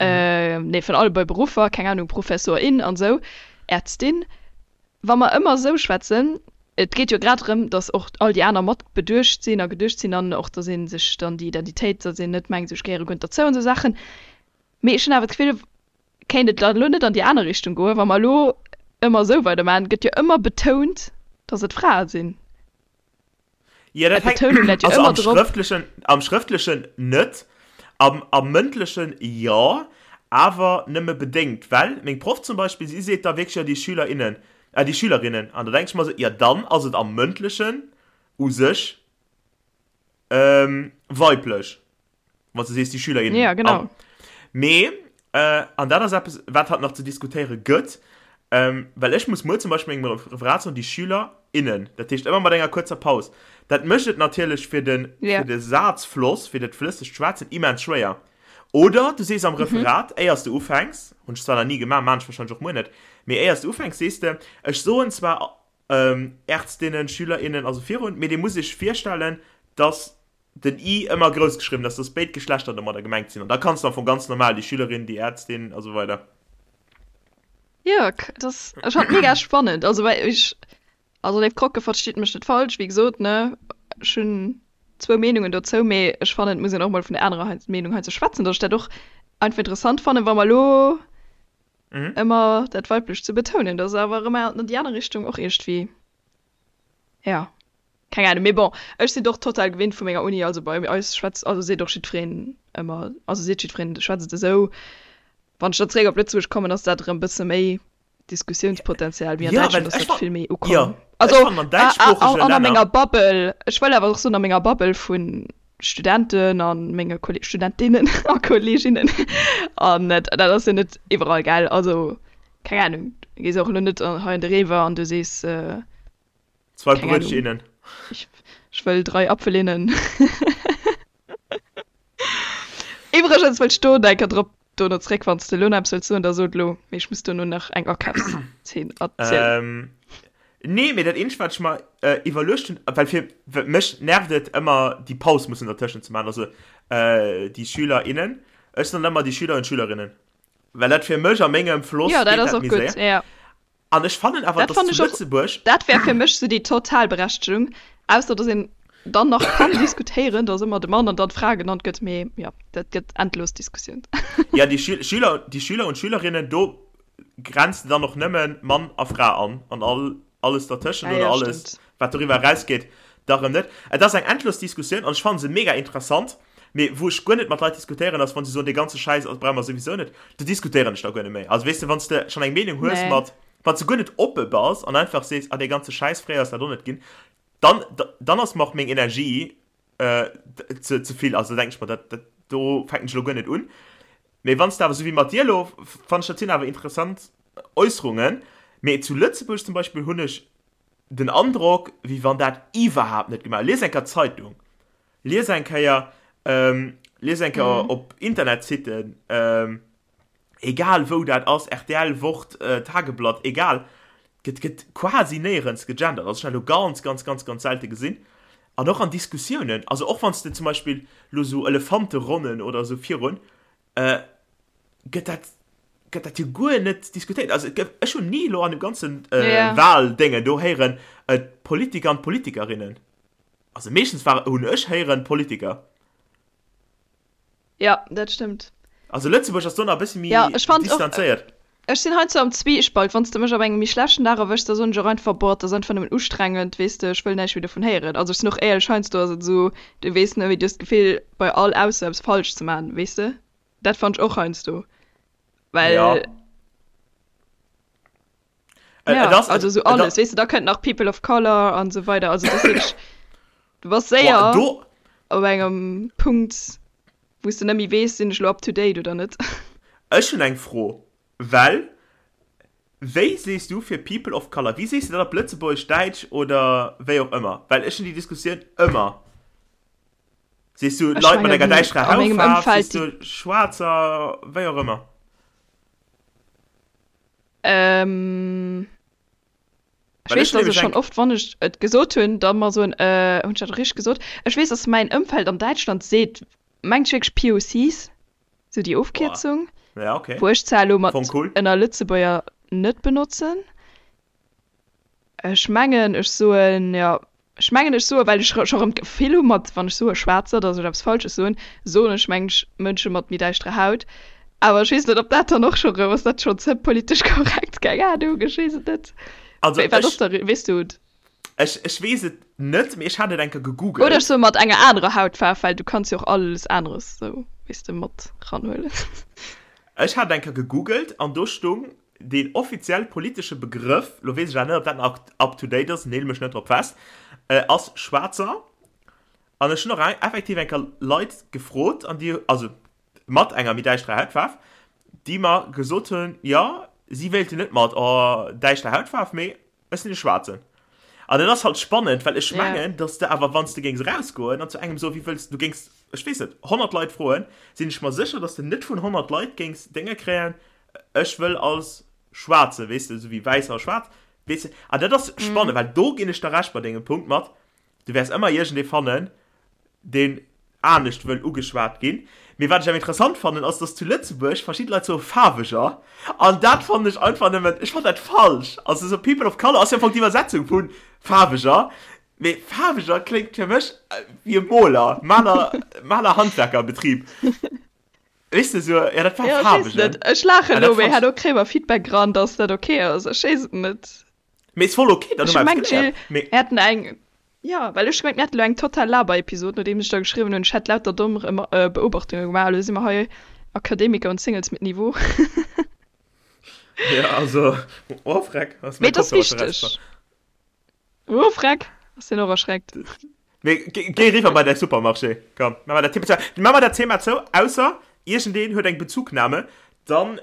nee vun alle bei Beruffer, keng Ahnung, Professor in an esou, Ärztin, wa mer ëmmer esou schwätzen, et geet jo grad drëm, datt och all déi aner mat beduecht sinn a geduecht sinn an och datt ee sech dann déi Identitéit, datt een net mengt, esou ech gehéiere guer net derzou an esou Saachen. Mee ech hunn awer d'Gefill, kéint et dann elo net an déi aner Richtung goen, wa mer elo ëmmer esou weidermaachen, gëtt jo ëmmer betount, datt et Frae sinn. Ja, dat hänkt, D'Betounung läit jo also ëmmer am drop. Schrëftlechen, am Schrëftlechen net, am, am Mëndlechen jo, awer nëmme bedéngt, well meng Proff zum Beispill, si seet da wierklech, jo, déi Schüler, innen, äh, déi Schülerinnen, an da denk ech mer esou, jo, dann ass et am Mëndlechen u sech, ähm, weiblech. Wann du sees déi Schüler Ja, genau. Mee äh, an dat ass eppes wat hat nach ze diskutéiere gëtt, ähm, well ech muss muer zum Beispill mengem Referat soen déi Schüler innen. Dat heescht ëmmer mat enger kuerzer Paus. Dat mécht et natierlech fir den, Ja. fir de Sazfloss, fir dat flëssegt Schwätzen immens schwéier. Oder du sees am Referat, éiers du ufänks, hunn ech zwar nach ni gemaach, maan ech wahrscheinlech och muer net, mee éiers du ufänks sees de, ech soen zwar ähm, Ärztinnen, Schüler innen, also virun, mee dir musst iech virstellen, dass den i ëmmer grouss geschriwwen ass, dass béid Geschlechter domadder gemengt sinn. An da kanns de am Fong ganz normal déi Schülerin, déi Ärztin a sou weider. Jo, dat ass, ech fand mega spannend. Also well ech, also léif Krocke, verstitt mech net falsch, wéi gesot, ne, ech hunn zwou Meenungen dozou, mee ech fannen, et muss een och mol vun der anerer Meenung hei ze schwätzen, dass ech dat och einfach interessant fannen, wa mer elo ëmmer dat Weiblecht ze betounen, dat ass awer erëm an déi aner Richtung och iergendwéi, ja. Keng Ahnung, mee bon, ech sinn och total gewinnt vu menger Uni, also bei eis schwätzt, also seet och jiddwereen ëmmer, also seet jiddwereen, schwätzt et esou. Wann ech dann zeréck op Lëtzebuerg kommen, ass dat erëm e bësse méi Diskussiounspotenzial, mee an Ja, Däitschland well ass ech dat fan, vill méi jo, ukomm. ech Also fannen an a, a, däitschsproochege an a Länner, menger Bubble, ech wëll awer och soen, a menger Bubble vun. Studenten a menge Kolleg Studentinnen a Kolleginnen an dat ass jo net iwwerall, gell? Also keng Ahnung, du gees och elo net hei an de Rewe an du sees, Zwei keng Ahnung, Brötchinnen. ech, ech wëll 3 Apfelinnen. Iwwregens wëll ech do nach eng Kéier drop dono zréck, wann s de elo nach eppes wëlls soen, da so et elo, mee ech muss dono nach eng Akafszeen erzielen. Nee, mee dat eenzegt wat ech mer iwwerluecht hunn, well fir mech nervt et ëmmer déi Paus mussen dertëschent ze maachen, also déi Schüler, innen, ech soen ëmmer déi Schüler und Schülerinnen, well dat fir mech a mengem Floss Jo, dat ass och gutt, jo. An ech fannen awer, Dat dass fannen zu ech och, Lëtzebuerg. dat wär fir mech sou déi total Berechtegung, ausser dass een dann nach kann diskutéieren, dass ëmmer de Mann an dann d'Fra genannt gëtt, mee jo, dat gëtt endlos Diskussioun. Ja, déi Schü Schüler, déi Schüler und Schülerinnen, do grenzt de dann och nëmme Mann a Fra an, an all, alles dertëschent Ja, oder ja, alles, stimmt. wat doriwwer erausgeet, da rëm net. Et ass eng endlos Diskussioun an ech fanne se mega interessant, mee wou ech guer net mat Leit diskutéieren, ass, wann se soen, dee ganze Schäiss ass, brauche mer souwisou net, do diskutéieren ech da guer net méi. Also, weess de, wann s de schonn eng Meenung hues Nee. mat, wann s de guer net oppe bass an einfach sees, ah, dee ganze Schäiss, fréier ass dat och net ginn, dann, dann ass mer och meng Energie ze, ze vill. Also, da denken ech mer, dat, dat do fänken ech elo guer net un. Mee wann s de awer, esou wéi mat dir elo, fannen ech, dat sinn awer interessant Äusserungen. Mee zu Lëtzebuerg zum Beispill hunn ech den Androck, wéi wann dat iwwerhaapt net gemaach. Lies eng Kéier d'Zeitung. Lies eng Kéier, lies eng Kéier op Internetsitten, egal wou dat ass, rtl, Wort, Tageblatt, egal, gëtt, gëtt quasi néierens gegendert. Also ech hunn dat elo ganz, ganz, ganz, ganz selte gesinn. An och an Diskussiounen, also och wann s de zum Beispill elo esou Elefanteronnen oder esou virun, gëtt dat, gëtt dat jo guer net diskutéiert. Also et gëtt, ech hunn ni elo an dem ganzen Wahldéngen do héieren, d'Politiker an d'Politikerinnen. Also meeschtens war, hunn ech héieren, Politiker. Ja, dat stëmmt. Also Lëtzebuerg ass do nach e bëssi méi Ja, ech fand och, distanzéiert. ech sinn heiansdo am Zwiespalt, wann s de mech op engem méi schlechten Dag erwëschs, da soen ech och einfach, boah, et ass einfach nëmmen ustrengend, weess de, ech wëll näischt méi dovun héieren. Also ech sinn och éierlech, heiansdo ass et esou, du weess net méi, du hues d'Gefill bei all Ausso eppes falsch ze maachen, weess de. Dat fannt ech och heiansdo, well. Ja. Ja, also so alles, weess de, da kënnt nach People of Color an esou weider, also dat ass wierklech, du bass séier op engem Punkt, wou s de net méi weess, sinn ech elo up to date oder net. Ech hunn eng Fro, well wéi sees du fir People of Color, wéi sees de dat op Lëtzebuergesch, Däitsch oder wéi och ëmmer? Well ech hunn déi Diskussioun ëmmer. Sees du Leit mat enger däischterer Hautfaarf, sees du Schwaarzer, wéi och ëmmer? Ähm, ech weess, dass ech schonn oft, wann ech et gesot hunn, da mer soen, äh, hunn ech dat richteg gesot? Ech weess, dass mäin Ëmfeld an Däitschland seet, mengt ech wierklech POCs, sou déi Ofkierzung, Ja, okay. wou ech zwar elo mat Fong cool. ënner Lëtzebuerger net benotzen. Ech mengen, ech soen, jo, Ech mengen ech soe well ech scho rëm d'Gefill hu mat wann ech soe Schwaarzer, datt ech eppes Falsches soen, soen ech mengen ech Mënsche mat méi däischterer Haut. Awer ech weess net ob dat dann och scho rëm, ass dat schonn ze politesch korrekt? Keng Ahnung, ech weess et net. Also Wat ass ech, da, weess du et? ech, ech weess et net, mee ech hat et eng Kéier Oder gegoogelt. ech soe mat enger anerer Hautfaarf, well du kanns jo och alles aneres sou, weess de, mat ranhuelen. Ech hat et eng Kéier gegoogelt an do stung Deen offiziell politesche Begrëff, lo weess ech awer net, ob dat nach up to date ass, neel mech net drop fest, ass Schwaarzer. An ech hunn och effektiv eng Kéier Leit gefrot, an déi, also mat enger méi däischterer Hautfaarf, déi mer gesot hunn, jo, si wéilten net mat, oh, däischter Hautfaarf, mee Ech sinn e Schwaarzen. An dat ass halt spannend, well ech mengen, dass de awer, wann s de géings erausgoen an zu engem soen, wéi wëlls, du géings, ech weess net, 100 Leit froen, sinn ech mer sécher, dass de net vun 100 Leit géings Dénge kréien, ech wëll als Schwaarze, weess de, esou wéi Wäisser a Schwaarz, weess de. An dat ass spannend, well do ginn ech der Recht bei dengem Punkt mat, Du wäers ëmmer iergendee fannen, deen anescht wëll ugeschwat ginn. Mee wat ech awer interessant fannen, ass, dass zu Lëtzebuerg verschidde Leit soe Faarweger. An dat fannen ech einfach nëmmen, ech fannen dat falsch. Also esou People of Color ass jo am Fong d'Iwwersetzung vu Faarweger. Mee Faarweger kléngt fir mech wéi e Moler, Maler, Maler-Handwerkerbetrib. Weess de, esou, jo dat war Jo, ech weess Faarwegen. net. Ech laachen An dat elo, mee fannt herno kréie mer Feedback eran, dass dat ok ass. Ech weess et net. Mee ist voll okay, dann Ech hu mer hu eppes gemengt, geléiert. Jill, Mee. mir hätten eng, jo, well ech hu gemengt, mir hätten elo eng total Laber-Episod, nodeems ech da geschriwwen hunn, ech hätt lauter domm Beobachtunge gemaach. Elo si mer hei Akademiker und Singles mit Niveau. Ja, also, oh freck, ass Mee mäi et ass Kopfhörer scho wichteg. rausgefall. Oh freck, ass deen och erschreckt. Mee géi eriwwer bei däi Supermarché. Komm, maache mer dat Thema zou. Maache mer dat Thema zou, ausser iergendeen huet eng Bezugnahme, dann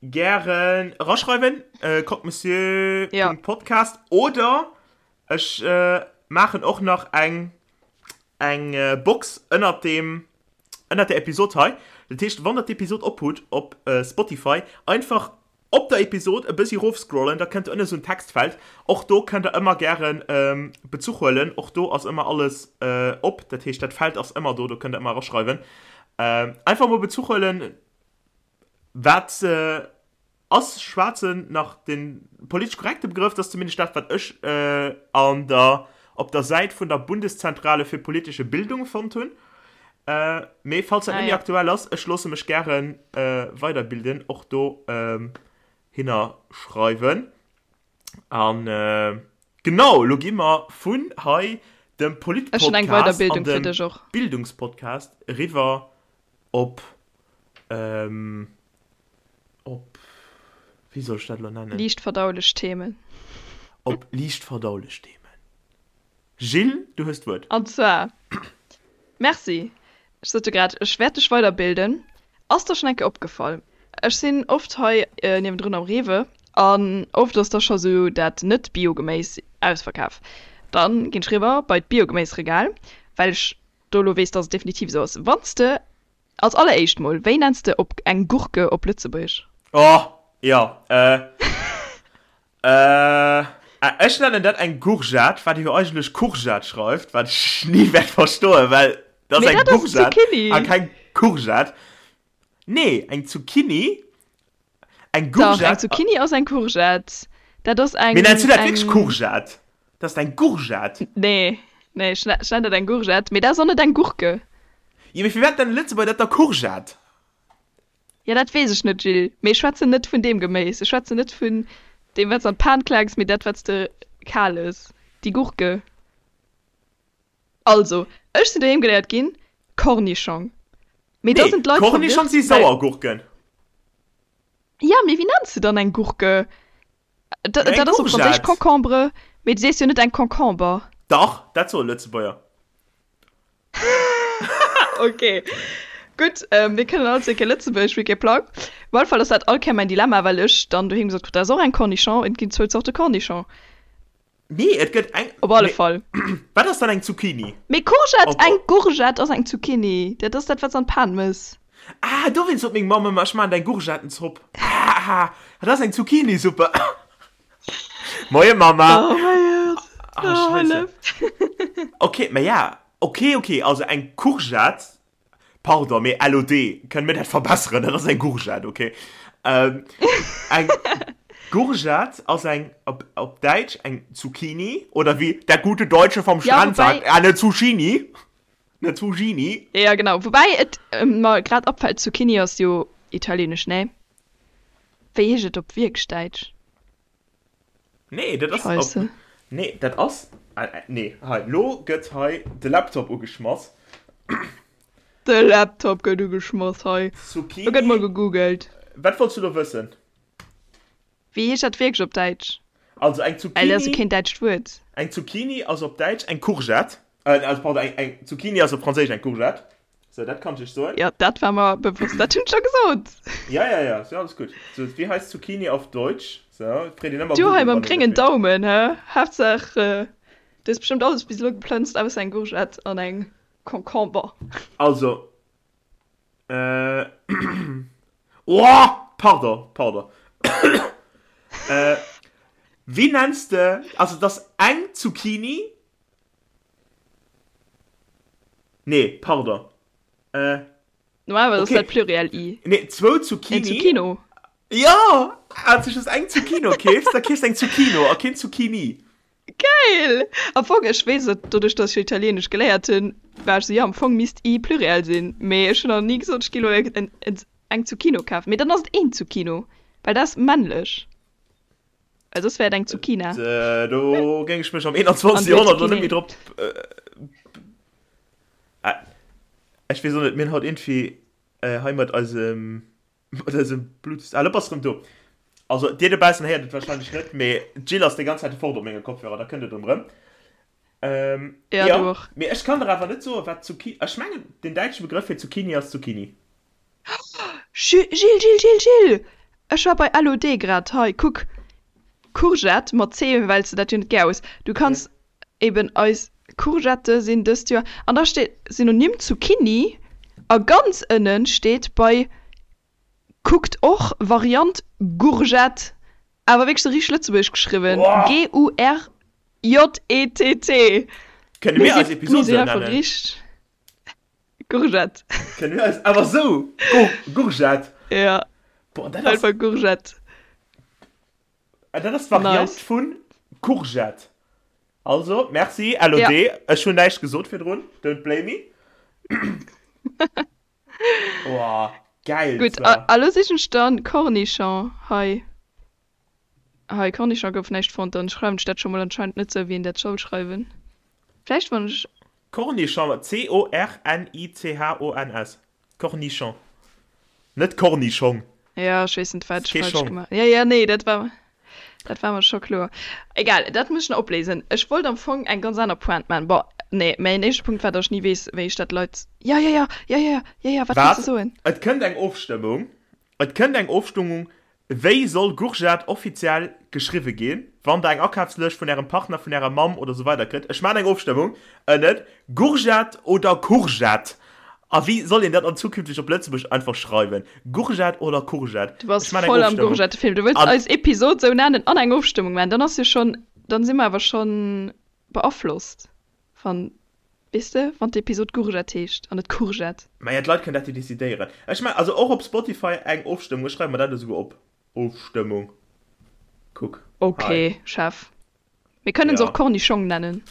gären eraschreiwen, croquemessieur.podcast oder ech maachen och nach eng eng Box ënnert deem ënnert der Episod hei. Dat heescht, wann der d'Episod ophutt op Spotify, einfach op der Episod e bëssi rofscrollen, da kënnt ënne sou en Textfeld. Och do kënnt der ëmmer gären Bezuch huelen. Och do ass ëmmer alles op. Dat heescht, dat Feld ass ëmmer do, do kënnt der ëmmer eraschreiwen. Einfach mol Bezuch huelen, wat ass schwaarzen nach de politesch korrekte Begrëff? Dat ass zumindest dat, wat ech an der, op der Säit vun der Bundeszentrale für politische Bildung fonnt hunn. Mee falls dat net méi aktuell ass, ech loosse mech gäre weiderbilden, och do hinner schreiwen. An genau, lo gi mer vun hei dem Politpodcast an dem Bildungspodcast eriwwer op, op, wéi soll ech dat elo nennen? Liicht verdaulech Themen. Op liicht verdaulech Themen. Gilles, du hues d'Wuert. An zwar, Merci, ech sot jo grad, ech wäert dech weiderbilden. Ass der schonn eng Kéier opgefall, ech sinn oft hei niewendrun am Rewe an oft ass da scho sou dat Net-Bio-Geméis ausverkaf. Dann ginn ech riwwer bei d'Biogeméisregal, well ech do elo weess, dass et definitiv esou ass. Wann s de Als alleréischt mol, wéi nenns de op eng Gurke op Lëtzebuergesch? Oh, jo, äh, äh, ech nennen dat eng Gourgette, wat ee jo eigentlech Courgette schreift, wat ech ni wäert verstoen, well dat ass eng Gourgette a keng Courgette. Nee, eng Zucchini, eng Gourgette. Dach, eng Zucchini ass eng Courgette. Dat ass eng. Mee nenns du dat wierklech Courgette? Dat ass eng Gourgette. Nee, nee, ech nennen dat eng Gourgette, mee dat ass och net eng Gurke. Jo, mee firwat nennen Lëtzebuerger dat da Courgette? Jo, dat weess ech net, Gilles, mee ech schwätzen net vun deem Geméis. Ech schwätzen net vun deem, wat s de an d'Pan klaaks, mee dat, wat s de kal ëss, déi Gurke. Also, ech sinn doheem geléiert ginn, Cornischong. Mee da sinn d'Leit verwirrt, well. Cornischong si Sauergurken. Jo, mee wéi nenns de dann eng Gurke? Dat ass op Franséisch Concombre, mee du sees jo net eng Concomber. Dach, dat soe Lëtzebuerger. Ok, gutt, mir kënnen all zwee kee Lëtzebuergesch, mee kee Plang. Op alle Fall ass dat all Kéier mäin Dilemma, well ech dann doheem gesot krut, dat ass och eng Cornichon, et ginn zwou Zorte Cornichon. Nee, et gëtt eng. Op alle Fall. Wat ass dann eng Zucchini? Mee Courgette, eng Gourgette ass eng Zucchini. Dat ass dat, wat s an d'Pan mëss. Ah, dowéinst sot meng Mamm ëmmer, ech maachen der eng Gourgettenzopp. Ah, dat ass eng Zucchinisuppe. Moie Mama. Oh mäi Gott. Ah, Scheisse. Ok, mä ja, ok, ok, also eng Courgette Pardon, mee LOD, kënne mir dat verbesseren? Dat ass eng Gourgette, ok? Ähm, eng Gourgette ass eng, op, op Däitsch eng Zucchini, oder wéi der gute Deutsche vom Strand ja, wobei, sagt, eine Zucchini. Eine Zucchini. Ja, genau. Woubäi et mer grad opfält, Zucchini ass jo italienesch, ne? Wéi heescht et op wierklech Däitsch? Nee, dat ass. Scheisse. Nee, dat ass. Nee, hei, lo gëtt hei de Laptop ugeschmass. De Laptop gëtt ugeschmass hei. Zucchini. Lo gëtt mol gegoogelt. Wat wollts du lo wëssen? Wéi heescht dat wierklech op Däitsch? Also eng Zucchini. Well dat ass jo keen däitscht Wuert. Eng Zucchini ass op Däitsch eng Courgette. Äh, also pardon, eng, eng Zucchini ass op Franséisch eng Courgette. Sou, dat kann ech iech soen. Jo, dat war mer bewosst. Dat hunn ech scho gesot. Ja, ja, ja, ass jo alles gutt. Sou, wéi heisst Zucchini auf Deutsch? Sou, freet een ëmmer Du hei mam gréngen Daumen, hä? Haaptsaach, du hues bestëmmt alles bis elo geplënzt, ausser eng Gourgette an eng Concombre. Also, äh, oh, pardon, pardon. Äh, wéi nenns de, also, et ass eng Zucchini, Nee, pardon. Äh. Normalerweise okay. ass dat Pluriel i. Nee, zwou Zucchini. Eng Zucchino. Ja! Als du just eng Zucchino keefs, da keefs eng Zucchino a keen Zucchini. Geil! Am Fong, ech weess et, doduerch dass ech jo Italieenesch geléiert hunn, war ech sou, jo, am Fong misst i Pluriel sinn, mee ech hunn nach ni gesot, ech gi lo eng Zucchino kafen. Mee dann ass et een Zucchino, well dat ass männlech. Well soss wär et eng Zucchina. Do géing ech mech am 21. Joerhonnert lo net méi drop. Ech weess och net, mir hunn haut iergendwéi hei mat eisem, mat eisem Bluetooth. Ah, lo bass de rëm do. Also, dir dobaussen héiert et warscheinlech net, mee d'Jill ass déi ganz Zäit fort op menge Kopfhörer, da kënnt et erëm. Ähm, Ja, ja, du och. mee ech kann der awer net soen, wat Zucchini. Ech mengen, den däitsche Begrëff fir Zucchini ass Zucchini. Gilles, Gilles, Gilles, Gilles! Ech war bei LOD grad. Hei, kuck, Courgette mat C, well s de dat jo net gär hues. Du kanns eben eis Courgette sinn dëst Joer. An da steet Synonym Zucchini a ganz ënnen steet bei kuckt och Variant Gourgette, awer wierklech sou richteg lëtzebuergesch geschriwwen, G-U-R-J-E-T-T. Kënne Mir mir eis si mir Episod sinn sou einfach nennen? richteg Gourgette. Kënne mir eis awer sou Gourgette? Ja, Boah, dat ass, einfach Gourgette. dat ass d'Variant Nice. vun Courgette. Also, merci LOD. Ja. Ech hunn näischt gesot virdrun, don't blame me. Oh, geil Gutt, zwar. a lo sichen ech dann Cornichon hei. Hei, Cornichon gouf näischt fonnt, dann schreiwen ech dat scho mol anscheinend net sou wéi een dat soll schreiwen. Vläicht wann ech. Cornichon, C-O-R-N-I-C-H-O-N-S. Cornichon. Net Kornischong. Ja, ech weess net wat Ass ech kee falsch Schong. gemaach. Ja, ja, nee, dat war dat war mer scho kloer. Egal, dat muss ech nach opléisen. Ech wollt am Fong eng ganz aner Pointe maachen. Bon, nee, mäin éischte Punkt war, datt ech ni weess, wéi ech dat Leit. Ja, ja, ja, ja, ja, ja, ja, wat wolls de Wat? soen? Et kënnt eng Ofstëmmung. Et kënnt eng Ofstëmmung, Wéi soll Gourgette offiziell geschriwwe ginn? Wann der eng Akafslëscht vun ärem Partner, vun ärer Mamm oder sou weider kritt. Ech maachen eng Ofstëmmung ënnen, Gourgette oder Courgette? A wéi soll een dat an zukünfteg op Lëtzebuerg einfach schreiwen? Gourgette oder Courgette? Du bass Ech maachen eng voll am Ofstëmmung. Gourgettefilm. Du wëlls An. eis Episod sou nennen an eng Ofstëmmung maachen. Dann ass jo schonn, dann si mer awer schonn beaflosst, wann, weess de, wann d'Episod Gourgette heescht an net Courgette. Maja, d'Leit kënnen dat jo decidéieren. Ech maachen also och op Spotify eng Ofstëmmung. Ech schreiwe mer dat esouguer op. Ofstëmmung. Kuck hei. Ok, Chef. Mir kënnen se Ja. och Cornischong nennen.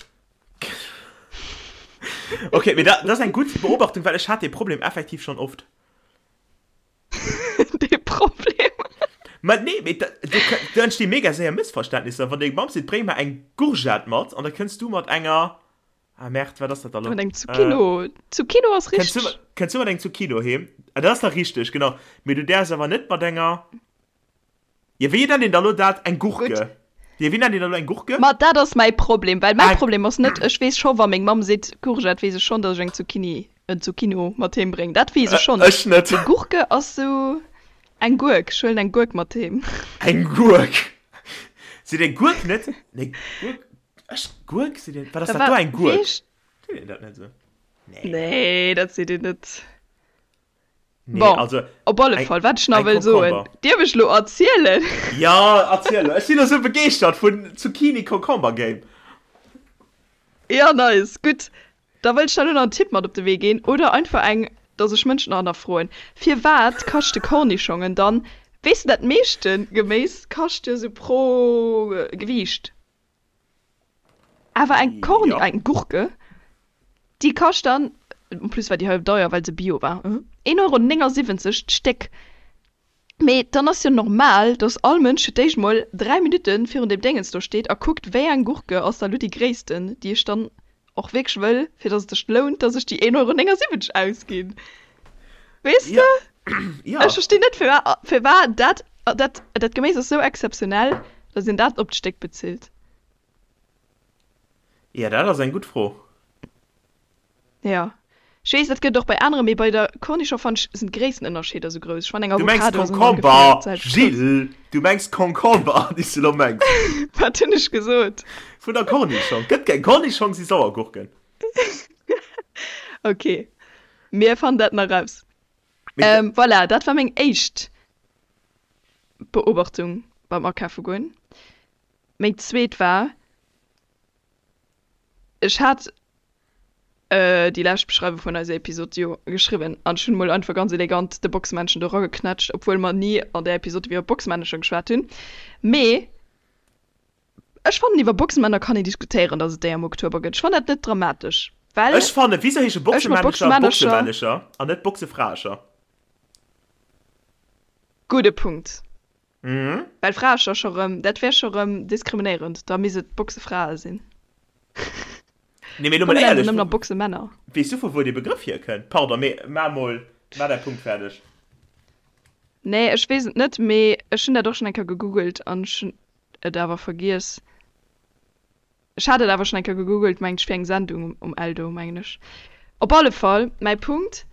Ok, mee dat ass eng gutt Beobachtung, well ech hat dee Problem effektiv schonn oft. Dee Problem. Ma nee, mee da, do, do entsti mega séier Mëssverständnisser. Wann deng Mamm seet, bréng mer eng Gourgette mat, an da kënns du mat enger, ah Merde, wat ass dat da lo? Mat engem Zucchino. Zucchino ass Kënns du, richteg. kënns du mat engem Zucchino heem? Ah, dat ass da richteg, genau. Mee du däerfs awer net mat enger. Jo, wéi nennt een da lo dat? Eng Gutt. Gurke? Jo, wéi nennt een da lo eng Gurke? Ma dat ass mäi Problem, well mäi Eng. Problem ass net, ech weess scho wa meng Mamm seet Courgette, weess ech schonn, datt ech eng Zucchini, en Zucchino mat heem bréngen. Dat weess ech schonn. Ech net. Mee Gurke ass sou eng Gurk, ech huelen eng Gurk mat heem. Eng Gurk? Seet ee Gurk net? Nee, Gurk, ech, Gurk seet een, wat ass Da dat do, war, eng Gurk? weess. Seet een dat net sou? Nee. Nee, dat seet een net. Nee, Bon, also op alle eng, Fall, wat ech nach eng wëll soen, Concomber. dierf ech lo erzielen? Ja, erziel lo. Ech sinn esou begeeschtert vun Zucchini Concomber Game. Ja, nice, gutt. Da wëll ech der lo nach en Tipp mat op de Wee ginn, oder einfach eng, dass ech Mënschen nach hannerfroen. Firwat kaschte Kornischongen dann, weess de, dat meeschte Geméis kascht jo sou pro Gewiicht. Awer eng Korn, Ja. eng Gurke, déi kascht dann, en plus war déi hei deier, well se Bio war, 1,79 Euro d'Stéck. Mee dann ass jo normal, dass all Mënsch fir d'éischt mol 3 Minutte virun deem Déngens do steet a kuckt, wéi eng Gurke ass da lo déi gréissten, déi ech dann och wierklech wëll, fir dass et sech lount, dass ech déi 1,79 Euro ausginn. Weess Ja. de? Ja. Ech verstinn net, firwat, firwat dat, dat, dat Geméis ass sou exzeptionell, dass een dat op d'Stéck bezilt. Ja, dat ass eng gutt Fro. Ja. Ech weess, dat gëtt et och bei anere, mee bei der Cornichon fannen ech, sinn d'Gréisstenënnerscheeder sou grouss. Ech fannen eng Du mengs Avocado ass ëmmer ongeféier Concomber, d'selwecht grouss. Jill! Du mengs Concomber, déi s du elo mengs. Wat hunn ech gesot? Vun der Cornichon. Gëtt keng Cornichong, si Sauergurken. Ok, mir fannen dat nach raus. Ähm, voilà, dat war meng éischt Beobachtung beim Akafe goen. Meng zweet war, ech hat déi lescht Beschreiwung vun eiser Episod jo geschriwwen an ech hunn mol einfach ganz elegant de Boxmännchen do erageknätscht, obwuel mer ni an där Episod iwwer Boxmännecher geschwat hunn. Mee Ech fannen iwwer Boxemänner kann een diskutéieren, dass et déi am Oktober gëtt. Ech fannen dat net dramatesch, well Ech fannen, wieso heesche ech mat Boxemännecher Boxemännercher. Boxemännecher an net Boxefraecher? Gudde Punkt. Mhm. Well Fraecher scho rëm, dat wär scho rëm diskriminéierend, da misst et Boxefrae sinn. Nee, mee lo Komm mol mir nennen se éierlech, nëmmen nach Boxemänner. weess du vu wou dee Begrëff hierkënnt? Pardon, mee mar mol, mar däi Punkt fäerdeg. Nee, ech weess et net, mee ech hunn dat och schonn eng Kéier gegoogelt an ech hunn et awer vergiess. Ech hat et awer schonn eng Kéier gegoogelt, mengt ech, fir eng Sendung um Eldo, mengen ech. Op alle Fall, mäi Punkt,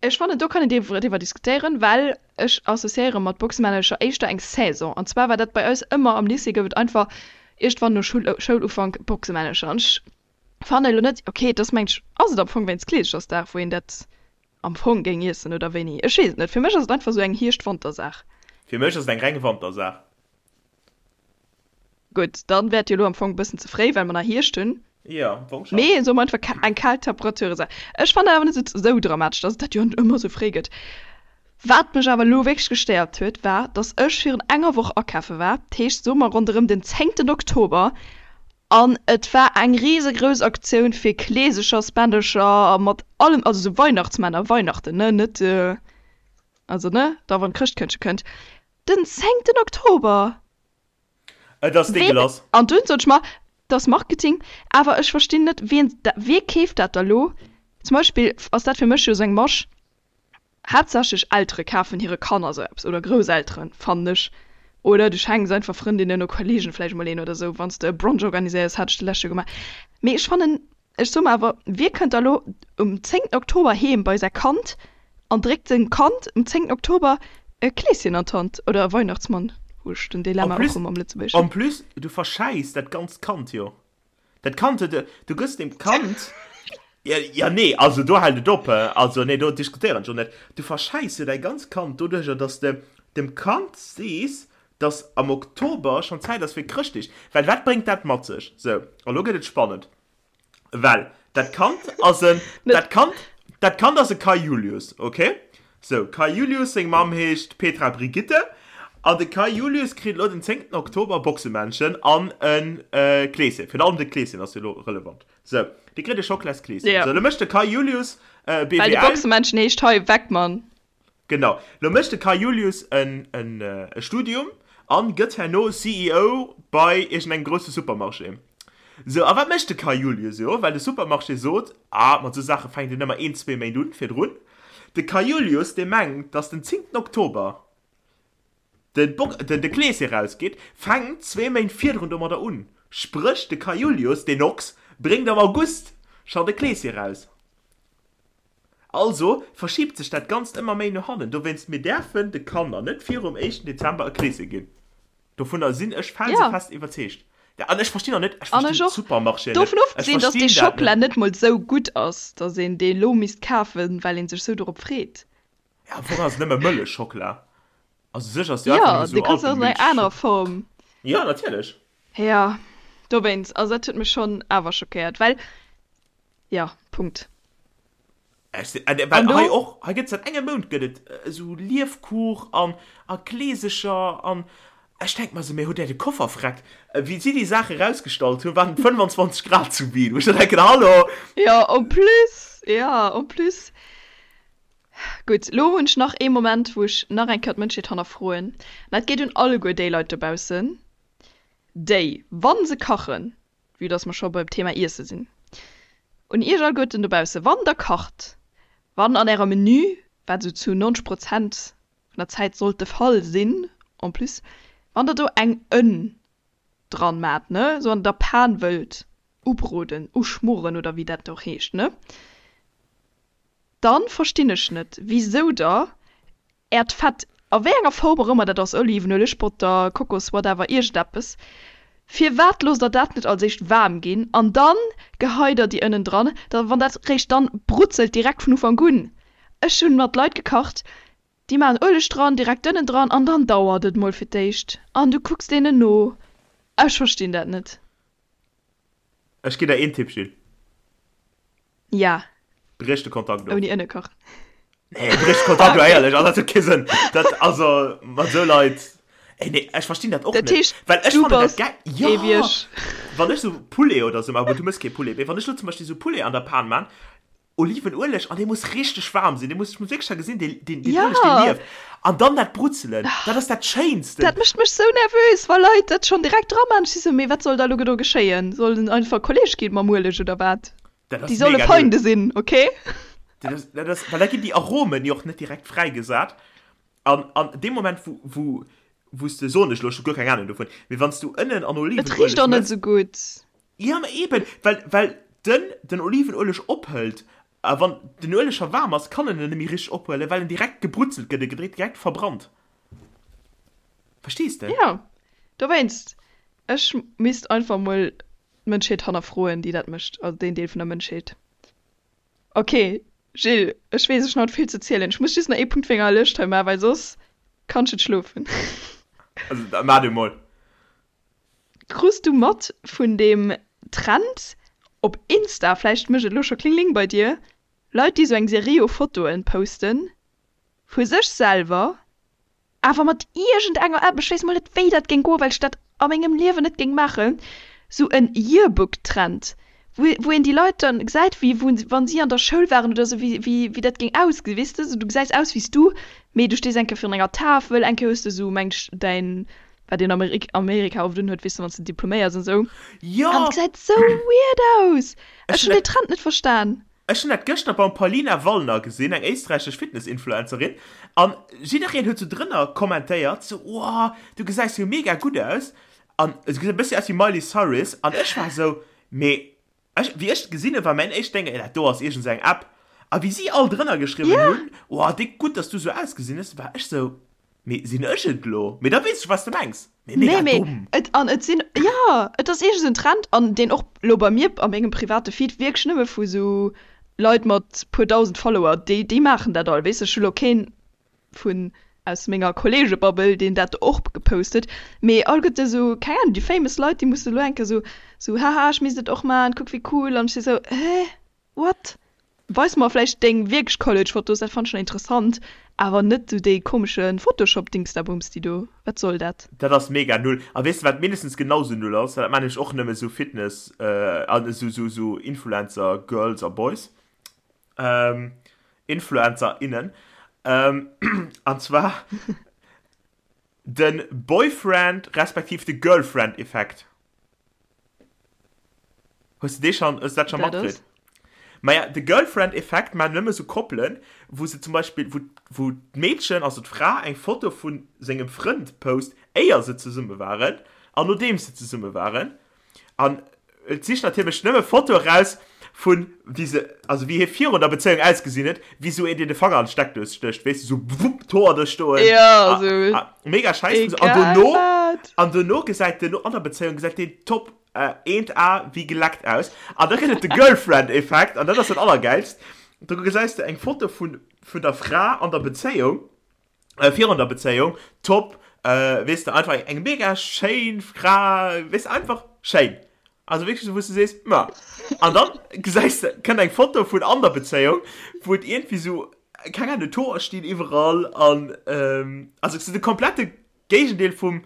Ech fannen, do kann een driwwer diskutéieren, well ech associéiere mat Boxemännercher éischter eng Saison. An zwar war dat bei eis ëmmer am Lycée, gouf et einfach iergendwann no Schoulufank Boxemännercher. An ech fannen elo net, okay, et ass mengt ech, ass et am Fong wéinst Kleeschersdag, wou een dat am Fong géing iessen oder wéini? Ech weess et net. Fir mech ass et einfach esou eng Hierscht-Wanter-Saach. Fir mech ass et eng reng Wantersaach. Gutt, dann wär et jo elo am Fong e bëssen ze fréi, well mer nach Hierscht hunn. Jo, am Fong schonn. Mee soe mer einfach eng kal Temperaturesaach. Ech fannen awer net esou dramatesch, dass et dat jo net ëmmer esou fréi gëtt. Wat mech awer elo wierklech gestéiert huet, war, dass ech virun enger Woch akafe war, dat heescht, soe mer ronderëm den zéngten Oktober, an et war eng risegrouss Aktioun fir Kleesechersbändercher mat allem, also esou Weihnachtsmänner, Weihnachten, ne, net, also ne, da wann d'Chrëschtkëndche kënnt. Den zéngten Oktober! Et ass dégueulasse. An dunn sot ech mer, dat ass Marketing, awer ech verstinn net, wien, wie keeft dat da lo? Zum Beispill ass dat fir mech jo esou eng Masch, haaptsächlech Eltere kafen hire Kanner esou eppes, oder Grousselteren, fannen ech. Oder du schenks einfach Frëndinnen oder Kollegen vläicht emol een oder esou, wann s de e Brunch organiséiers, hat ech de lescht Joer gemaach. Mee ech fannen, Ech soe mer awer, wie kënnt da lo um zéngten Oktober heem bei säi Kand an dréckt sengem Kand um zéngten Oktober e Kleeschen an d'Hand oder e Weihnachtsmann? Hu ech den En Dilemma och plus, rëm am Lëtzebuergeschen. en plus, du verschäiss dat ganzt Kand jo. Dat Kand huet, du gëss dem Kand, ja, ja nee, also do hält et op, also nee, do diskutéieren ech och net. Du verschäiss jo däi ganzt Kand doduercher, dass de dem Kand sees, dass am Oktober schonn Zäit ass fir Chrëschtdeeg. Well wat bréngt dat mat sech? Sou, a lo gëtt et spannend. Well dat Kand ass en, dat Kand, dat Kand ass e Kai Julius, okay? Sou, Kai Julius seng Mamm heescht Petra Brigitte an de Kai Julius kritt elo den zéngten Oktober Boxemännchen an e Kleeschen. Virun allem de Kleeschen ass jo elo relevant. Sou, dee kritt e Schocklaskleeschen. Ja. Sou, elo mécht de Kai Julius BWL. Well de Boxemännchen heescht hei Weckmann. Genau. Lo mécht de Kai Julius en e Studium an gëtt herno CEO bei iergendengem grousse Supermarché. Sou, a wat mécht de Kai Julius? Jo, well de Supermarché sot, ah, mat sou Saache fänkt een ëmmer een, zwee Méint un virdrun. De Kai Julius, dee mengt, dass den zéngten Oktober de Bok, den de Kleeschen erausgeet, fänkt zwee Méint virdrun domadder un. Spréch, de Kai Julius, deen Ochs, bréngt am August schonn de Kleeschen eraus. Also verschiebt sech dat Ganzt ëmmer méi no hannen. Dowéinst, mir däerfen de Kanner net virum éischten Dezember e Kleeschen ginn. Dovunner sinn ech felsefest iwwerzeegt. An ech verstinn och net, ech An ech verstinn och. d'Supermarchéen net. Dovun Ech ofgesinn, dass dee verstinn dat Schockela net. net mol sou gutt ass, dass een dee lo misst kafen, well een sech sou dorop freet. Ja, am Fong ass et nëmme Mëllechschockela. Also u sech ass et jo einfach Jo, nëmme dee sou kanns du och an enger anerer Alpenmilchschockela. Form. Jo, natierlech. Jo, dowéinst. Also dat huet mech schonn awer schockéiert, well Jo, Punkt. Ech sinn, äh, well An do? hei och, hei gëtt säit engem Mount gëtt et esou Liefkuch an a Kleesecher an ech denk mer esou, mee hutt där de Koffer vreckt? Wéi si déi Saache rausgestallt hunn, waren et 25 Grad zu Wien, wou ech da denken, hallo? Jo, en plus, jo, en plus. Gutt, lo hunn ech nach ee Moment, wou ech nach eng Kéier d'Mënschheet hannerfroen. An dat geet un alleguer déi Leit dobaussen, déi, wa se kachen, vue dass mer scho beim Thema Iesse sinn, un iech alleguerten dobausse, wann der kacht, wann an ärem Menü, wat esou zu 90 Prozent vun der Zäit sollt de Fall sinn, en plus, wann der do eng Ënn dran maacht, ne, esou an der Pan wëllt ubroden, uschmoren oder wéi dat och heescht, ne, dann verstinn ech net, wisou der Äert Fett, a wéi enger Form och ëmmer dat ass, Olivenueleg, Botter, Kokos, whatever, iergendeppes, firwat loosst der dat net als éischt waarm ginn an dann geheit der déi Ënnen dran, da wann dat réischt dann brutzelt direkt vun Ufank un. Ech hunn mat Leit gekacht, déi maachen Ueleg dran, direkt d'Ënnen dran an dann dauert et mol fir d'éischt an du kucks deenen no. Ech verstinn dat net. Ech ginn der een Tipp, Jill. Ja. Briech de Kontakt of. Ouni Ënne kachen. Nee, briech de Kontakt of, éierlech, also dat huet kee Sënn. Dat, also, mat esou Leit, ey, nee, ech verstinn dat och Dat net. heescht, Well ech du fannen dat bass gäi, jo! ee wéi ech. Wann ech sou Poulet oder sou maachen, bon, du mëss kee Poulet, mee wann ech lo zum Beispill sou Poulet an der Pan maan, Olivenueleg, an dee muss richteg waarm sinn, dee muss, ech muss wierklech da gesinn, dee, deen, deen Ueleg, dee Ja! lieft. An dann dat Brutzelen, dat ass dat Schéinsten. Dat mécht mech sou nervös, wa Leit dat schonn direkt dra maan. Ech si sou, mee wat soll da lo do geschéien? Soll en einfach Kolleg ginn mam Ueleg oder wat? Dat Déi ass solle mega Feinde gutt. sinn, okay? Dat ass, dat ass, well da ginn déi Aromen jo och net direkt fräigesat. An, an deem Moment, wou, wou, wou s de, soen ech elo, ech hu guer keng Ahnung dovun, mee wann s du Ënnen an Et richt Olivenueleg och net mëss, sou gutt. Ja, ma eben, well, well den den Olivenueleg ophëlt, a wann den Ueleg scho waarm ass, kann en en net méi richteg ophuelen, well en direkt gebrutzelt gëtt, e gëtt direkt verbrannt. Verstees de? Ja, dowéinst, ech misst einfach mol d'Mënschheet hannerfroen, déi dat mécht, also deen Deel vun der Mënschheet. Ok, Gilles, ech weess, ech hunn haut vill ze zielen. Ech muss just nach ee Punkt wéi enger Lëscht hei maachen, well soss kann ech net schlofen. Also, da maach du mol. Krus du mat vun deem Trend op Insta, vläicht mécht et elo scho Kling-Ling bei dir, Leit déi sou eng Serie u Fotoen posten vu sech selwer, awer mat iergend enger App, ech weess mol net wéi dat géing goen, well ech dat a mengem Liewen net géing maachen, sou en Yearbook-Trend, wou wou een déi Leit dann gesäit wéi wou wann si an der Schoul waren oder sou, wéi wéi wéi dat géing ausgesinn, weess de, sou du gesäis aus wéi s du, mee du stees eng Kéier virun enger Tafel, eng Kéier hues de sou meng ech däin wat een Amerika oft unhuet, weess de, wann s de diploméiers an sou. Jo! An et gesäit sou weird aus! Ech hunn dee Trend net verstan. Ech hunn dat gëschter beim Paulina Wallner gesinn, eng éisträichesch Fitness-Influencerin, an jiddereen huet sou drënner kommentéiert, sou, Wow, du gesäis jo mega gutt aus! An se gesäit e bëssi aus wéi Miley Cyrus. An ech war sou, mee ech, wéi ech et gesinn hunn, war mäin éischt Déng, dat do ass iergend sou eng App. A wéi si all drënner geschriwwen hunn, Wow, déck gutt, dass du sou ausgesinn hues, war ech sou, Mee sinn ech et lo? Mee da weess ech, wat s de mengs. Mee mega Nee, mee domm. et, an et sinn, jo, et ass iergend esou en Trend, an deen och lo bei mir a mengem private Feed wierklech nëmme vu sou Leit mat puer dausend Follower, déi, déi maachen dat all, weess de. Ech hu lo keen vun aus menger Kolleegebabbel, deen dat och gepost huet, mee all gëtt esou, keng Ahnung, déi famous Leit, déi musse lo eng Kéier sou, sou, haha, ech misst et och maachen, kuck wéi cool, an ech si sou, hä? What? Weis mer vläicht deng wierklech College Fotos, dat fannen ech nach interessant, awer net sou déi komesche Photoshop Dingsdabumsti do, wat soll dat? Dat ass mega null. A weess de wat mindestens genau sou null ass? Dat maan nämlech och nëmme sou Fitness an sou sou sou Influencer Girls a Boys, Influencer innen, an zwar den Boyfriend respektiv de Girlfriend Effekt. Hues de dee schon, hues de dat schon matkritt? Maja, de Girlfriend-Effekt maachen nëmme sou Koppelen, wou se zum Beispill, wou, wou d'Meedchen, also d'Fra, eng Foto vu sengem Frënd post, éier se zesumme waren an nodeems se zesumme waren. An et sicht natierlech nëmme Fotoe raus vun, wéi se, also wéi hie virun der Bezéiung ausgesinn huet, wéi sou een, deen de Fanger an d'Steckdous stécht, weess de, sou wupp, d'Hoer do stoen. Ja, sou. Mega scheiss. An dono, an dono gesäit den, an der Bezéiung gesäit deen top eent A wéi geleckt aus. An da gëtt et de Girlfriend-Effekt, an dat ass dat Allergäilst. Do gesäis de eng Foto vun, vun der Fra an der Bezéiung, virun der Bezéiung, top, weess de, einfach eng mega schéin Fra, weess de, einfach schéin. Also wierklech esou, wou s de sees, ma. An dann gesäis de, kënnt eng Foto vun an der Bezéiung, wou et iergendwéi esou, keng Ahnung, d'Hoer stinn iwwerall an, also esou de komplette Géigendeel vum,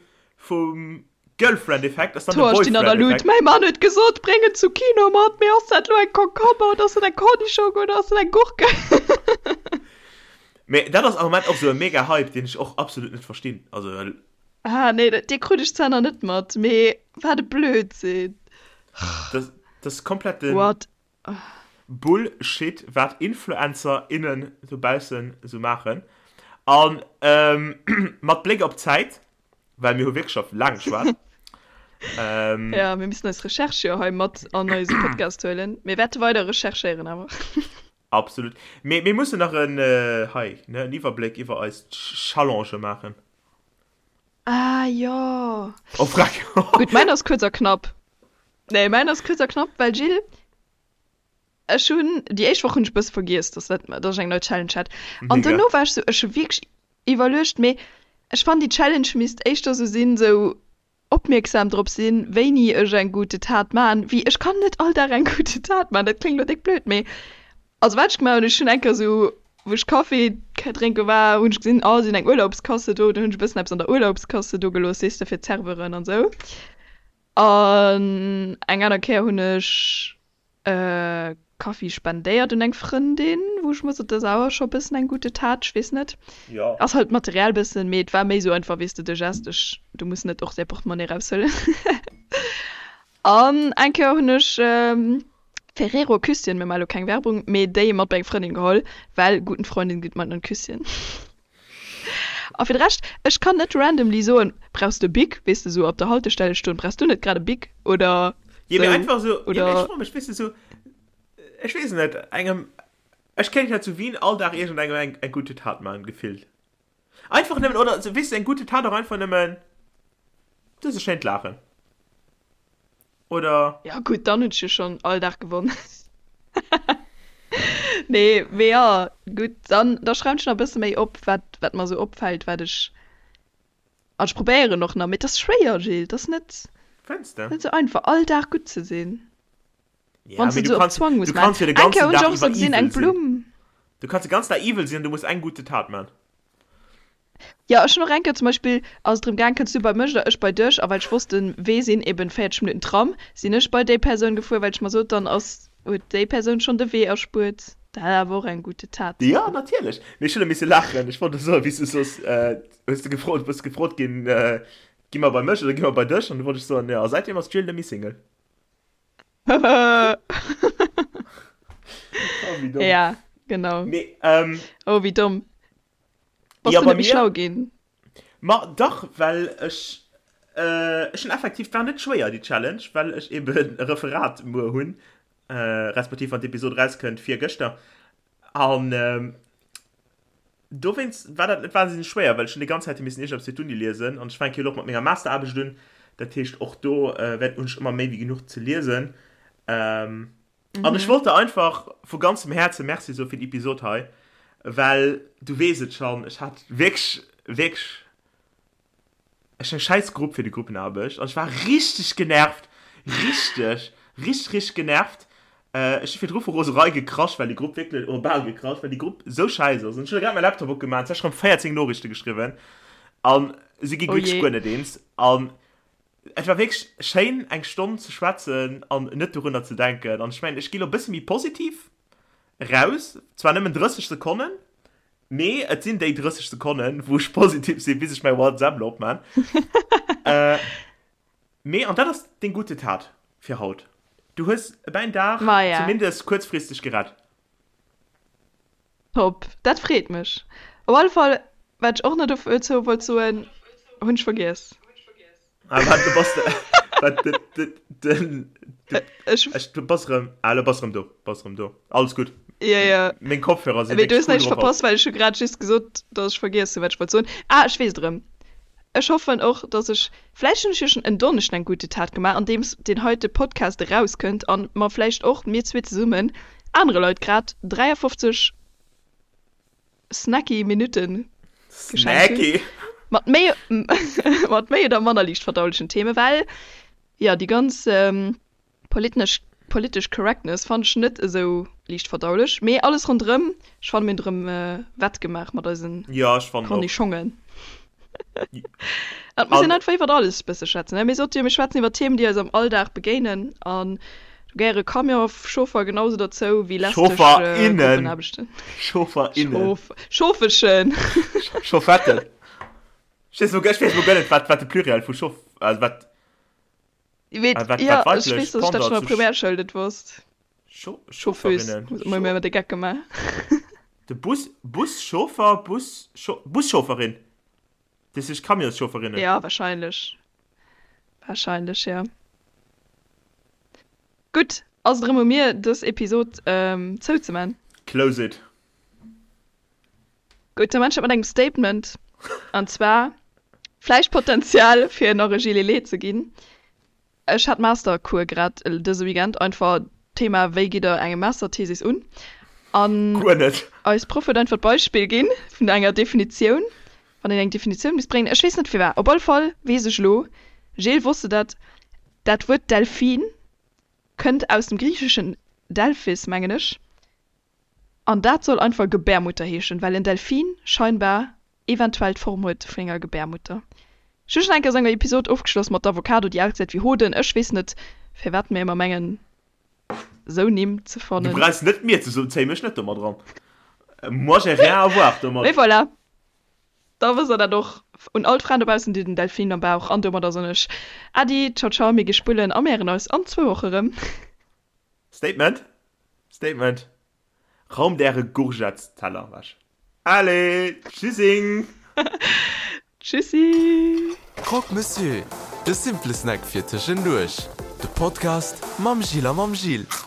vum Girlfriend-Effekt ass dann de D'Hoer stinn an der Luut. Boyfriend-Effekt. Mäi Mann huet gesot, bréng en Zucchino mat, mee ass dat elo eng Concombre oder ass dat eng Cornichong oder ass dat eng Gurke? Mee dat ass am Moment och esou e mega Hype, deen ech och absolut net verstinn. Also. Ah nee, dee krut ech zwar nach net mat, mee wat e Blödsinn. Dat ass kompletten What? Bullshit, wat Influencer, innen dobaussen esou maachen. An mat Bléck op d'Zäit, well mir hu wierklech scho laang geschwat. Ja, mir müssen eis Recherche jo hei mat an eise Podcast huelen. Mir wäerte weider recherchéieren awer. Absolut. Mee mir mussen nach en, hei, ne, en Iwwerbléck iwwer eis Challengë maachen. Ah jo. Oh freck. Gutt, mäin ass kuerz a knapp. Nee, mäin ass kuerz a knapp, well Gilles, ech hunn, déi éischt Woch hunn ech e bësse vergiess, dass dat, dass ech eng nei Challenge hat. An Mega. dono war ech sou, ech hu wierklech iwwerluecht, mee ech fannen déi Challenge misst éischter sou sinn, sou opmierksam drop sinn, wéini ech eng gute Tat man, wéi ech kann net all Dag eng gute Tat man, dat kléngt lo déck blöd, mee also wat ech gemaach hunn, ech hunn eng Kéier sou wou ech Café drénke war, hunn ech gesinn, oh si hunn eng Urlaubskasse do, dann hunn ech e bëssen eppes an der Urlaubskasse do gelooss, weess de, fir d'Serveuren an sou. An eng aner Kéier hunn ech Kaffi spendéiert un eng Frëndin, wou ech mer sot, dat ass awer scho bëssen eng gute Tat, ech weess net. Jo. Ass halt materiell bëssen, mee et war méi sou einfach, weess de, de Gest, ech, du muss net och säi Portemonnaie eraushuelen. An eng Kéier hunn ech Ferrero Küsschen, mir maache lo keng Werbung, mee déi mat bei eng Frëndin geholl, well guten Freundin gibt man ein Küsschen. A fir de Rescht, ech kann net randomly soen, brauchs de e Bic, weess de, sou op der Haltestelle stoen, brauchs du net grad e Bic oder. Jo, mee einfach esou, jo, mee ech froe mech, weess de, esou, ech weess net, engem, ech kéint ja zu Wien all Dag iergendengem eng, eng gute Tat maachen, gefillt. Einfach nëmmen, oder, weess de, eng gute Tat och einfach nëmmen, du hues e schéint Laachen. Oder? Ja gutt, dann hunn ech jo schonn all Dag gewonn. Nee, mee jo, gutt, dann, da schreiwen ech nach e bësse méi op, wat, wat mer esou opfält, wat ech, an ech probéieren och nach, mee et ass schwéier, Gilles, et ass net, Fënns de? net esou einfach, all Dag gutt ze sinn, Ja, wann s mee de du et esou op kanns, Zwang muss du kanns maachen. jo de Eng Kéier ganzen hunn ech Dag och esou iwwer gesinn, eng evil sinn. Blumm. Du kanns de ganzen Dag evil sinn an du muss eng gute Tat man. Jo, ech hunn och eng Kéier zum Beispill, ass et drëm gaang, kënns du bei mech oder ech bei dech? A well ech wosst, den Wee sinn eben 40 Minutten Tram, sinn ech bei déi Persoun gefuer, well ech mer sot, dann ass, huet déi Persoun schonn de Wee erspuert. Dat ass awer och eng gute Tat. Jo, natierlech. Mee ech hunn e misse laachen. Ech wollt soen, wéi s du soss, hues de gefrot, bass gefrot ginn, gi mer bei mech oder gi mer bei dech? An du wollt ech soen, jo, a säitdeem ass d'Jill net méi Single. Oh, wéi domm. Ja, genau. Mee, ähm. Oh, wéi domm. Bass Ja, du bei net méi mir? schlau ginn? Ma dach, well ech, ech hunn effektiv, et war net schwéier déi Challenge, well ech eben e Referat muer hunn, respektiv wann d'Episod erauskënnt, virgëschter. An dowéinst war dat net wahnsinneg schwéier, well ech hunn déi ganz Zäit hu missen iergendeppes fir d'Uni liesen an ech fänke jo elo och mat menger Masteraarbecht un, dat heescht och do wäert, hunn ech ëmmer méi wéi genuch ze liesen. An ech wollt der einfach vu ganzem Häerze Merci soe fir déi Episod hei, well du weess et schonn, ech hat wierklech, wierklech, ech eng schäiss Grupp fir déi Gruppenaarbecht an ech war richteg genervt, richteg, richteg, richteg genervt. Ech hu virdru vu Roserei gekrasch, well déi Grupp wierklech, oder bal gekrasch, well déi Grupp esou schäiss ass. An ech hunn grad mäi Laptop opgemaach an ech hu rëm 14 Noriichte geschriwwen an si gi Oh wierklech jee. guer net eens. An Et war wierklech schéin eng Stonn ze schwätzen an net dorunner ze denken. An ech mengen, ech gi lo e bësse méi positiv raus, zwar nëmmen 30 Sekonnen, mee et sinn déi 30 Sekonnen, wou ech positiv sinn, bis ech mäi WhatsApp lo opman. Mee, an dat ass deng gute Tat fir haut, du hues mäin Dag Maja. zumindest kuerzfristeg gerett. Top, dat freet mech. Op alle Fall, wat ech och nach dozou wollt soen, hunn ech vergiess. Ah, wat, du bass de, wat, de, de, den, de, Ech, ech, du bass erëm, ah, lo bass erëm do, bass erëm do. Alles gutt. ja, ja. Meng Kopfhörer si Mee du wierklech hues cool näischt drop haut. verpasst, well ech hu grad just gesot, dass ech vergiess hunn, wat ech wollt soen. Ah, ech weess et erëm. Ech hoffen och, dass ech, vläicht hunn ech jo schonn en Donneschden eng gute Tat gemaach, andeems deen heite Podcast erauskënnt an mer vläicht och, mir zwee zesummen, anere Leit grad 53 snacky Minutte geschenkt hunn. Snacky! Mat méi, mat méi oder manner liicht verdaulechen Themen, well jo, déi ganz Politnesch, politesch Correctness fannen ech net esou liicht verdaulech, mee alles ronderëm, ech fannen mir hunn erëm wett gemaach mat eisen Ja, ech fannen och. Cornichongen. Et muss een An einfach iwwert alles bësse schwätzen, ne? Mir sote jo, mir schwätzen iwwer Themen, déi eis am Alldag begéinen an do gehéiere Camionschauffer genau sou derzou wéi lästeg Chaufferinnen! Gruppenaarbechten. Chaufferinnen! Chauf, Chauffeschen! Chauffetten! Ech weess elo, ech weess elo guer net, wat, wat de Pluriel vu Chauff, also wat. Weet, Ah, wat, ja, wat ech weiblech weess, dass ech dat Pendant schon an zu der Primärschoul net wosst. Scho Chauffeuse, Chaufferinnen. hu mer ëmmer de Geck gemaach. De Bus, Buschauffer, Bus, Buschaufferin. Dat heescht Camionschaufferinnen. Ja, wahrscheinlech. Wahrscheinlech, ja. Gutt, ass et erëm u mir, dës Episod ähm, zouzeman. Close it. Gutt, da man ech dat mat engem Statement. An zwar vläicht Potenzial fir nach e Gilet Lé ze ginn. Ech hat Mastercours grad dëse Weekend, einfach Thema wéi gitt der eng Masterthesis un? An Guer net. eis Proff huet einfach d'Beispill ginn vun enger Definitioun, wann een eng Definitioun misst bréngen, ech weess net firwat, op alle Fall weess ech elo, Gilles, wosst de dat, dat Wuert Delfin kënnt aus dem griicheschen Delphis, mengen ech, An dat soll einfach Gebärmutter heeschen, well en Delfin scheinbar eventuell d'Form huet vun enger Gebärmutter. Ech hu schon eng Kéier esou eng Episod ofgeschloss mat der Avocado, déi ausgesäit wéi Hoden. Ech weess net, firwat mir ëmmer mengen, esou Nimm ze Du fannen. brauchs net mir ze soen, zéi mech net domat eran. Moi j'ai rien à voir domat. Mee voilà, da wësst der dat och. Un all d'Fraen dobaussen, déi den Delfin am Bauch an domadder soen ech Äddi, ciao ciao, mir gi spullen a mir héieren eis an zwou Woche rëm. Statement! Statement! Raumt äre Gourgettesteller ewech. Allez, tschüssing! Tschüssi! Croque Monsieur, de simple Snack fir tëschenduerch. De Podcast mam Gilles a mam Gilles.